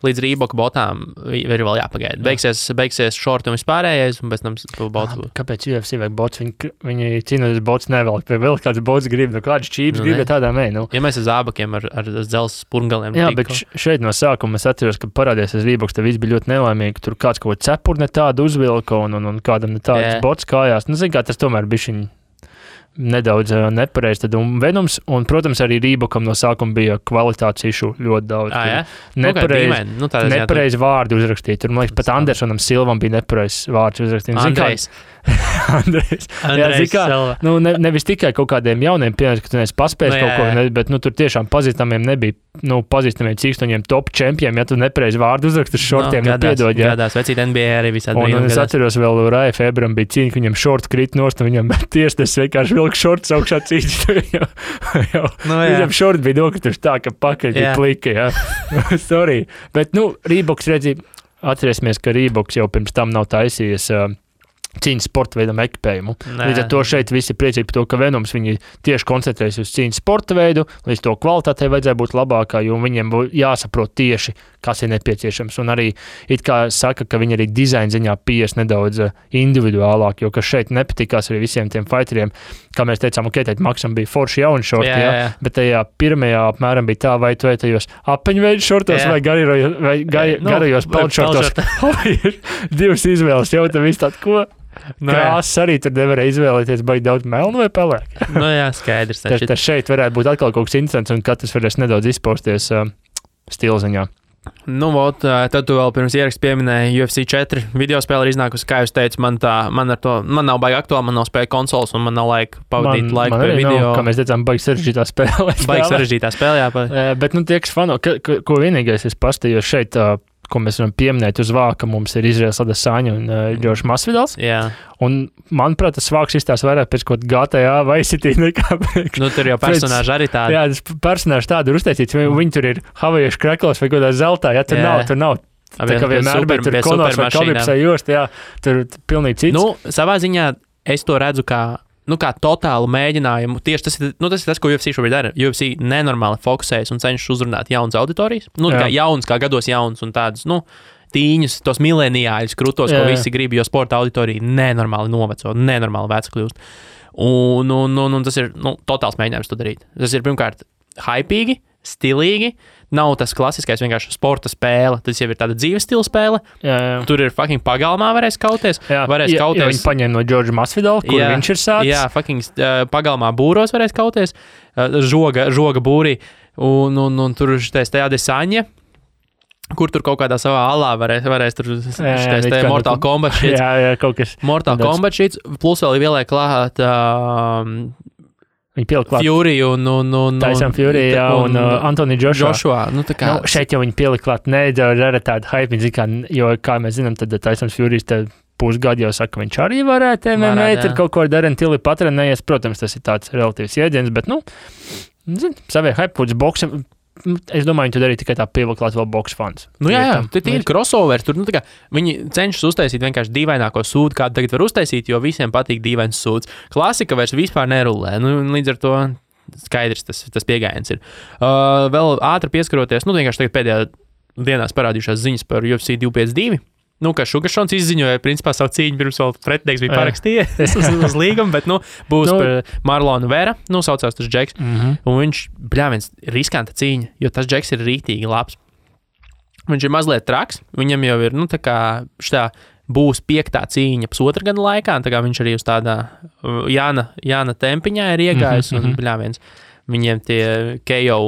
līdz Reebok botām ir vēl jāpagaida. Beigsies šorti un vispārējais, un pēc tam botas būs. Kāpēc UFC vajag botas? Viņi cīnoties botas nevelk, vai vēl kāds botas grib, kāds čības grib, bet tādā mē. Ja mēs ar zābakiem, ar dzelzs spurngaliem. Jā, bet šeit no sākuma es atceros, ka parādījās Reeboks, tad viss bija ļoti nelaimīgi. Tur kāds kaut cepurne tādu uzvilka un kādam ne tādas botas kājās. Zin kā, tas tomēr bišķiņ nedaudz nepareizi. Tad Venoms, un, protams, arī Reebokam no sākuma bija kvalitātes išu ļoti daudz. Nepareizi vārdi uzrakstīt. Tur, man liekas, pat Andersonam Silvam bija nepareizs vārds uzrakstīt. Andrejs. Nevis tikai kaut kādiem jauniem piemēriem, ka tu neesi paspējis kaut ko, bet tur tiešām pazīstamiem nebija, pazīstamiem cīkstoņiem top čempiem, ja tu nepareizi vārdu uzrakst uz šortiem, piedod. Gadās, vecīt NBA arī visādi. Un es atceros vēl Raja Febram bija cīņa, ka viņam šorti krīt nost, un viņam tiesnes vienkārši vilk šorts augšā cīņa. Viņam šorti bija nokrituši tā, ka pakaļ bija plika, jā. Sorry. Bet, Reeboks redzīja, atcerēsimies, ka Reeboks jau pirms tam nav taisījies cīņas sporta veidam ekipējumu. Līdz ar to šeit visi priecīgi par to, ka Venoms viņi tieši koncentrējas uz cīņas sporta veidu, līdz to kvalitātei vajadzēja būt labākā, jo viņiem jāsaprot tieši, kas ir nepieciešams. Un arī it kā saka, ka viņi arī dizaina ziņā pies nedaudz individuālāk, jo kas šeit nepatikās arī visiem tiem fighteriem, kā mēs teicām, teikt, Maksam bija forši jauni šorti, bet tajā pirmajā apmēram bija tā, vai tu tajos apeņveidu šortos vai garajos palčortos. Divas izvēles, jau tā viss tād, ko? Krāsas arī tur nevarēja izvēlēties, baigi daudz melnu vai pelēku. Nu jā, skaidrs. Tas šeit varētu būt atkal kaut kas interesants, un katrs varēs nedaudz izpausties stilziņā. Nu, vot, tad tu vēl pirms ieraksta pieminēji UFC 4 video spēle ir iznākusi, kā jūs teicu, man nav baigi aktuāli, man nav spēja konsoles, un man nav laika pavadīt laiku pie video. Nav, kā mēs teicām, baigi sarežģītā spēlē. Baigi sarežģītā spēlē, jā. Bet, tie, kas fano, ko vienīgais es pastījos šeit, ko mēs varam pieminēt uz vāka, mums ir Izraels Adesanya un Džordžs Masvidals. Jā. Un, manuprāt, tas vāks izstās vairāk pēc kaut GTA vai City nekā Nu, tur jau personāži arī tādi. Jā, tas personāži tādi ir uztaisīts. Viņi tur ir havajiešu kreklos vai kaut kādā zeltā. Jā, tur nav. Tā kā vienmēr, bet tur Konors vai Kalipsai jost, jā, tur pilnīgi cits. Nu, savā ziņā es to redzu kā totālu mēģinājumu. Tieši tas ir tas, ko UFC šobrīd dara. UFC nenormāli fokusējas un cenšas uzrunāt jaunas auditorijas. Kā jaunas, kā gados jaunas un tādas, tīņus, tos mileniāļus krūtos, ko visi grib, jo sporta auditorija nenormāli noveco, nenormāli veca kļūst. Un tas ir totāls mēģinājums to darīt. Tas ir pirmkārt hypīgi, stilīgi. Nav tas klasiskais vienkārši sporta spēle. Tas jau ir tāda dzīves stila spēle. Jā. Tur ir fucking pagalmā varēs kauties. Varēs kauties. Viņi paņēma no Džordža Masvidala, kur viņš ir sācis. Jā, fucking pagalmā būros varēs kauties. Žoga būrī. Un tur šitais te Adesanya, kur tur kaut kādā savā alā varēs tur šitais te Mortal Kombat šits. Jā, kaut kas. Mortal Kombat šits. Plus vēl ieliek klāt Viņi pielika klāt Fury un Tyson Fury, jā, un Anthony Joshua. Šeit jau viņi pielika klāt nedaudz ar tādu hype, jo, kā mēs zinām, tad Tyson Fury pusgadu jau saka, viņš arī varētu MMA, tad kaut ko ar Darren Tilly patrenējies. Protams, tas ir tāds relatīvs jēdziens, bet, savie hype puts boksam. Es domāju, viņi to darīja tikai tā pievilklāt vēl boks fans. Jā, tur ir crossovers. Tur, viņi cenšas uztaisīt vienkārši dīvaināko sūdu, kādu tagad var uztaisīt, jo visiem patīk dīvains sūds. Klasika vairs vispār nerulē. Līdz ar to skaidrs tas pieejams ir. Vēl ātri pieskaroties, vienkārši tagad pēdējā dienās parādījušās ziņas par UFC 252. Ka Šugašons izziņoja, principā, savu cīņu pirms vēl pretinieks bija parakstījies uz līgumu, bet, būs par Marlonu Vera, saucās tas Džeks, un viņš, viens riskanta cīņa, jo tas Džeks ir rītīgi labs. Viņš ir mazliet traks, viņam jau ir, šitā būs 5. cīņa pusotra gada laikā, un tā kā viņš arī uz tādā Jāna tempiņā ir iegājis, un, viņiem tie KO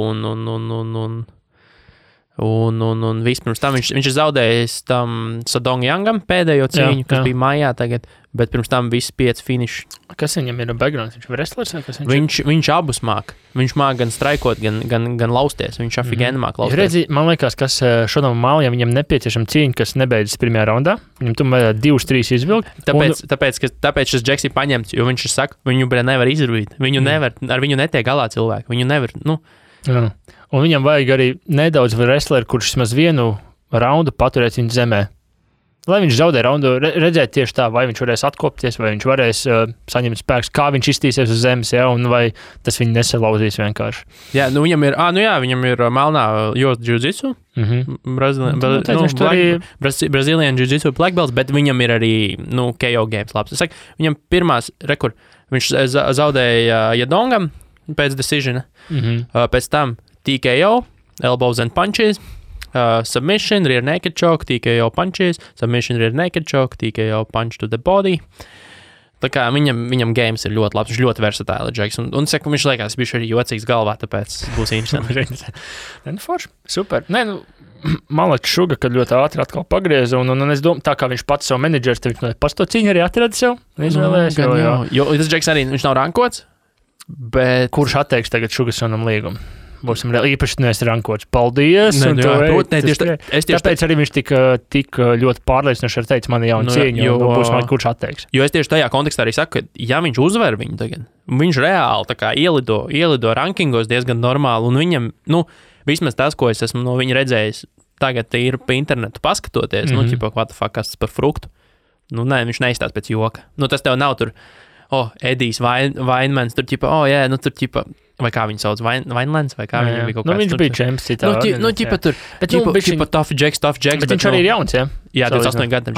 un vispirms tam viņš ir zaudējis tam Sadong Youngam pēdējo cīņu, kas bija maijā tagad, bet pirms tam visi 5 finiši. Kas viņam ir backgrounds? Viņš ir wrestlers vai kas viņš abus māk. Viņš māk gan straikot, gan lausties. Viņš afigēni māk lausties. Redzi, man liekas, kas šodien Mālijam viņam nepieciešama cīņa, kas nebeidzas pirmajā raundā. Viņam tomēr 2-3 izvilkt. Tāpēc šis Džeks ir paņemts, jo viņš saka, viņu nevar izrūvīt. Ar viņu netiek galā cilvēki. Viņu nevar, Jā. Un viņam vajag arī nedaudz wrestleri, kurš vismaz vienu raundu paturēt viņa zemē. Lai viņš zaudē raundu, redzēt tieši tā, vai viņš varēs atkopties, vai viņš varēs saņemt spēks, kā viņš iztīsies uz zemes, un vai tas viņu nesalauzīs vienkārši. Jā, viņam ir melnā jiu-jitsu, Brazilian jiu-jitsu black belts, bet viņam ir arī, KO games labs. Es saku, viņam pirmās viņš zaudēja Jadongam pēc decision, pēc tam TKO, elbows and punches, submission, rear naked choke, TKO punches, submission, rear naked choke, TKO punch to the body. Tā kā viņam games ir ļoti labs, viņš ļoti versatīli Džeks, un saku, viņš liekas, viņš arī jocīgs galvā, tāpēc būs interesanti. Forši, super. Man liekas, Šuga, kad ļoti ātri atkal pagrieza, un es domāju, tā kā viņš pats savu menedžers, tad viņš pats to cīņu arī atrada sev, izvēlējies. Jo tas Džeks arī, viņš nav rankots, bet... Kurš atteiks tagad Šugasonam līgumu? Būsim īpaši neesi rankots. Paldies! Tāpēc arī viņš tik ļoti pārliecinoši arī teica mani jaunu cīņu, un būs man kurš atteiks. Jo es tieši tajā kontekstā arī saku, ka ja viņš uzvar viņu tagad, viņš reāli tā kā ielido rankingos diezgan normāli, un viņam, vismaz tas, ko es esmu no viņa redzējis, tagad ir pa internetu paskatoties, what the fuck, kas tas par fruktu. Viņš neizstās pēc joka. Tas tev nav tur, Edijs Vainmans, tur vai kā viņu sauc, Vainlands, vai kā viņam bija kaut kāds. Viņš bija čemps citā. Tur, bet tough Jacks. Bet viņš arī ir jauns, jā? Jā, 28 gadu.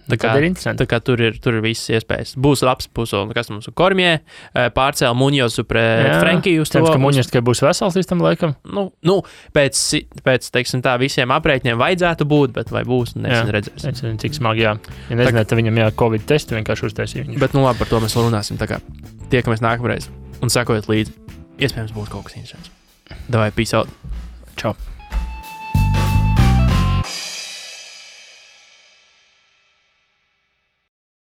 Tad ir interesanti. Tā kā tur ir visas iespējas. Būs labs pusolis, kas mums ir Kormjē, pārcēla Muņozu pret Frenkiju uz to. Cerams, ka Muņos tikai būs vesels līdz tam laikam. Nu, pēc teiksim tā, visiem aprēķiniem vajadzētu būt, bet vai būs, redzēsim. Nezinu, cik smagi, jā. Ja nezināt, tad viņam Covid testu vienkārši uztaisīja. Bet, labi, par to mēs vēl runāsim. Tā kā tiekamies nākamreiz un sekojiet līdzi. Iespējams, būs kaut kas interesants. Davai, peace out. Čau.